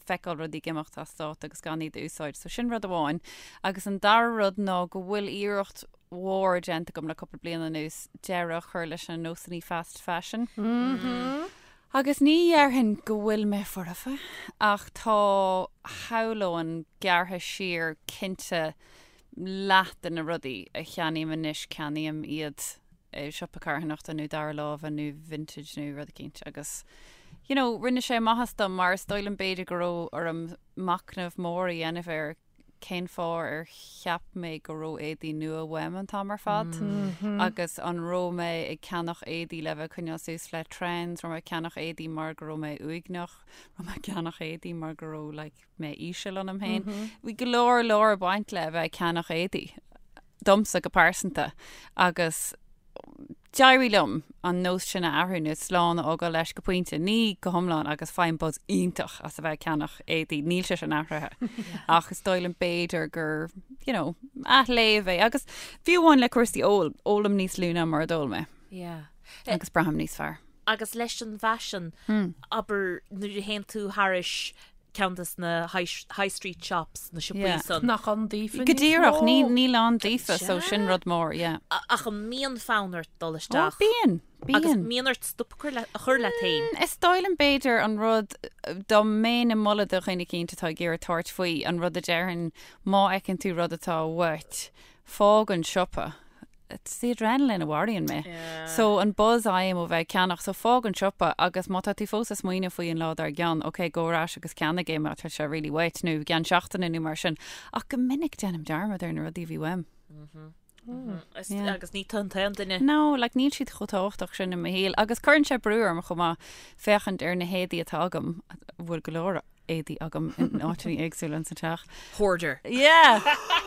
[SPEAKER 3] feiceáil rudaí ag imeacht as dáta agus gan iad a úsáid. So sin rud amháin. Agus an dara rud ná go bhfuil iarracht mhór déanta agam le cúpla bliain anuas deireadh a chur leis na nósanna fast fashion. Agus ní dhéarfainn go bhfuil mé foirfe, ach tá, shamhlóinn, gearrtha siar cinnte leath de na rudaí a cheannaím anois, ceannaím iad i siopa carthanachta nó dara láimhe nó vintage nó rud eicínt agus you know rinne sé maitheas dom mar is dóigh liom b'fhéidir go raibh orm machnamh mór a dhéanamh ar cén fáth ar cheap mé go raibh éadaí nua uaim an t-am ar fad agus an raibh mé ag ceannach éadaí le bheith ag coinneáil suas le trends, raibh mé ag ceannach éadaí mar go raibh mé uaigneach, raibh mé ag ceannach éadaí mar go raibh like mé íseal ionam féin. Bhí go leor leor ag baint le bheith ag ceannach éadaí. domsa go pearsanta agus d'éirigh liom an nós sin a athrú nó slán a fhágáil leis go pointe, ní go hiomlán agus faighim buzz iontach as a bheith ag ceannach éadaí, níl sé sin athraithe ach is dóigh liom b'fhéidir gur, you know, athléamh é agus fiú amháin le cúrsaí óil, ólaim níos lú ná mar a d'ól mé.
[SPEAKER 4] Yeah.
[SPEAKER 3] Agus braithim níos fearr.
[SPEAKER 4] Agus leis an bhfaisean, abair nuair a théann tú thairis ceann des na high street shops, na siopaí
[SPEAKER 3] Yeah.
[SPEAKER 4] san.
[SPEAKER 2] Nach ann daofa
[SPEAKER 3] Go
[SPEAKER 2] níos
[SPEAKER 3] díreach,
[SPEAKER 2] mó.
[SPEAKER 3] ní, níl ann daofa, so sin rud mór, yeah.
[SPEAKER 4] Ach an mbíonn fonn ort dul
[SPEAKER 3] Ó,
[SPEAKER 4] isteach?
[SPEAKER 3] bíonn,
[SPEAKER 4] Agus
[SPEAKER 3] bíonn.
[SPEAKER 4] mbíonn ort stop a chur le- a chur leat féin?
[SPEAKER 3] Is dóigh liom b'fhéidir an rud, dá mbeinn ag moladh do dhuine eicínt atá ag iarraidh tabhairt faoi, an rud a déarfainn, má fheiceann tú rud atá uait, fág an siopa. It's the adrenaline a mharaíonn mé. So an buzz a fhaighim ó bheith ag ceannach, so fág an siopa agus má tá tú fós ag smaoineamh faoi an lá dár gcionn, ok, gabh ar ais agus ceannaigh é má tá sé really uait nó i gceann seachtaine nó mar sin. Ach go minic déanaim dearmad ar na rudaí a bhí uaim.
[SPEAKER 4] Yeah. Agus ní tú an t-aon duine.
[SPEAKER 3] No, like níl siad chomh tábhachtach sin i mo shaol agus cuireann sé brú orm chomh maith féachaint ar na héadaí atá agam, a bhfuil go leor éadaí agam in áiteanna éagsúla ins an teach.
[SPEAKER 4] Hoarder.
[SPEAKER 3] Yeah!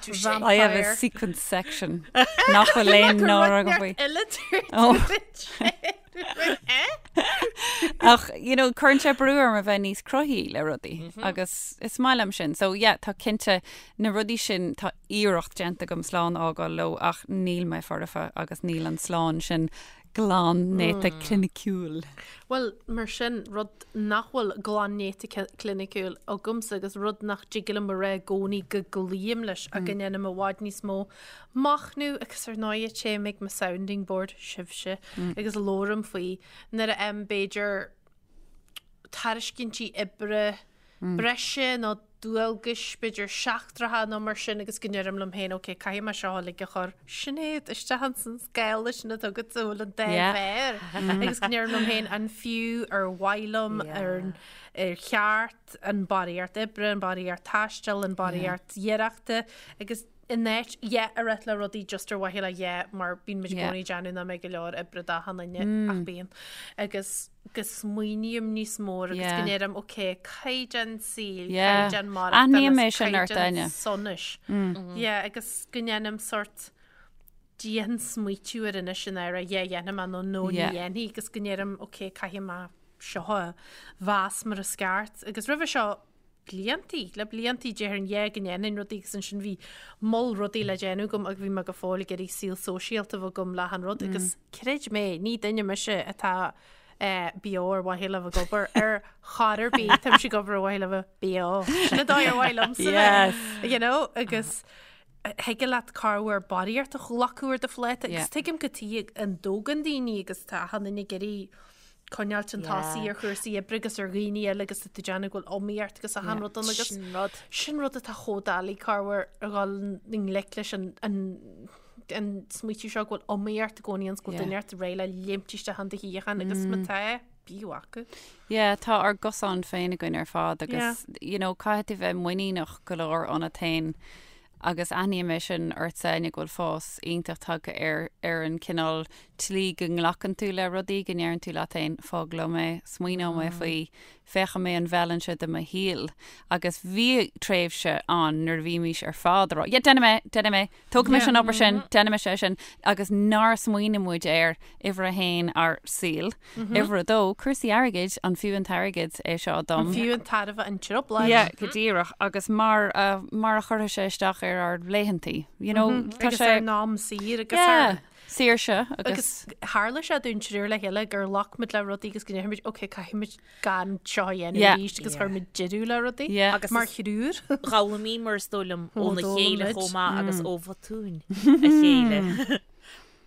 [SPEAKER 2] Vampire.
[SPEAKER 3] I have a sequin section nach bhfuil aon náire agam faoi. Oh. Ach, you know, cuireann sé brú orm a bheith níos cruthaithí le rudaí agus is maith liom sin. So, yeah, tá cinnte na rudaí sin, tá iarracht déanta agam slán a fhágáil leo ach níl mé foirfe agus níl an slán sin glan néata cliniciúil.
[SPEAKER 2] Bhuel, mar sin, rud nach bhfuil glan néata cliniciúil agamsa agus rud nach dtig liom a rá i gcónaí go gcloím leis ach go ndéanaim i bhfad níos mó machnamh agus ar ndóigh téim ag mo sounding board, sibhse, agus labhraím faoi nuair a fhaighim b'fhéidir tairiscintí oibre breise nó dualgais, b'fhéidir seachtracha nó mar sin agus go ndeirim liom féin ok, caithfidh mé seo uilig a chur, Sinéad, isteach ins an scála sin atá agat a bhfuil an dá mhéar agus go ndeirim liom féin an fiú ar mhaith liom, ar ar cheart an barraíocht oibre, an barraíocht taistil, an barraíocht iarrachta agus in áit yeah a rá le rudaí just ar mhaithe le yeah mar bíonn muid i gcónaí ag déanamh nach mbeidh go leor oibre d'achan duine ach bíonn. Agus go smaoiním níos mó agus go ndeirim ok caighdeán saoil, caighdeán maireachtála is caighdeán sonais. Yeah agus go ndéanaim sort dian-smaoitiú air anois in áit yeah dhéanfaidh mé nó no ní dhéanfaidh agus go ndeirim ok caithfidh mé seo a mheas mar is ceart agus roimhe seo bliantaí, le bliantaí déarfainn yeah go ndéanfainn rudaí agus ansin bhí moll rudaí le déanamh agam agus bhí mé go fóill ag iarraidh saol sóisialta a bheith agam le achan rud agus creid mé, ní duine mise atá Beo ar mhaithe le bheith ag obair ar chor ar bith, táimse ag obair ar mhaithe le bheith beo. Sin an dóigh ar mhaith liomsa bheith, you know, agus thig leat corruair barraíocht a ghlacadh ar do phláta agus tuigim cad chuige a dtógann daoine agus tá achan duine ag iarraidh coinneáilt chun tosaigh ar chúrsaí oibre agus ar dhaoine eile agus tá tú ag déanamh go bhfuil iomaíocht agus achan rud ann agus
[SPEAKER 4] Sin rud.
[SPEAKER 2] sin rud atá chomh doiligh corruair a dhul i ngleic leis an an an smaoitiú seo go bhfuil iomaíocht i gcónaí ann 's go bhfuil duine ort réidh le léimt isteach in do shuíochán agus má tá, bíodh acu.
[SPEAKER 3] Yeah, tá ár gcosán féin againn ar fad agus you know, caithfidh tú bheith muiníneach go leor ionat féin agus aithním é sin ortsa Áine go bhfuil fás iontach tagtha ar ar an cineál tslí go nglacann tú le rudaí, go ndeireann tú leat féin fág liom é, smaoineoidh mé faoi, féachfaidh mé an bhfeileann sé do mo shaol agus bhí tréimhse ann nuair a bhímís ar fad ag rá yeah déanfaidh mé, déanfaidh mé, Tógfaidh mise an obair sin, déanfaidh mise é sin, agus nár smaoinigh muid ar uimhir a haon ár saol, uimhir a dó, cúrsaí airgid, an fiú an t-airgead é seo dom?
[SPEAKER 2] An fiú an tairbhe an trioblóid?
[SPEAKER 3] Yeah, go díreach, agus mar a, mar a chuirfeadh sé isteach ar ár laethantaí, you know,
[SPEAKER 2] tá sé. Agus ár n-am saor agus ár.
[SPEAKER 3] Yeah, saoirse agus.
[SPEAKER 2] Agus tharla sé dúinn triúr le chéile gur ghlac muid le rudaí agus go ndéarfaidh muid, ok, caithfidh muid gan seo a dhéanamh
[SPEAKER 3] Yeah.
[SPEAKER 2] arís agus chuir muid deireadh le rudaí
[SPEAKER 3] Yeah.
[SPEAKER 4] Agus
[SPEAKER 2] mar
[SPEAKER 4] is-
[SPEAKER 2] thriúr.
[SPEAKER 4] D'fhoghlaimíomar is dóigh liom óna
[SPEAKER 2] d'fhoghlaim
[SPEAKER 4] chéile
[SPEAKER 2] muid.
[SPEAKER 4] chomh maith agus ó bhotúin a chéile.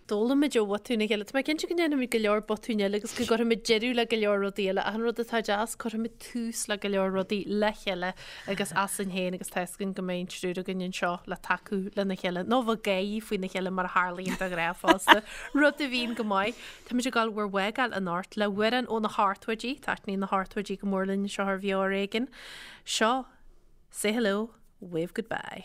[SPEAKER 2] D'fhoghlaim muid ó bhotúin a chéile. Tá mé cinnte go ndéanfaimid go leor botúin eile agus go gcuirfimid deireadh le go leor rudaí eile. Ach an rud atá deas, cuirfimid tús le go leor rudaí le chéile agus asainn féin agus tá fhios againn go mbeidh an triúr againn anseo le tacú lena chéile nó bheith ag gáirí faoina chéile mar a tharlaíonn de ghnáth fosta. Rud a bhíonn go maith. Táimid ag dul bhur bhfágáil anocht le hamhrán ó na hochtóidí, taitníonn na hochtóidí go mór linn anseo ar Bheo Ar Éigean. Seo Say Hello, Wave Goodbye.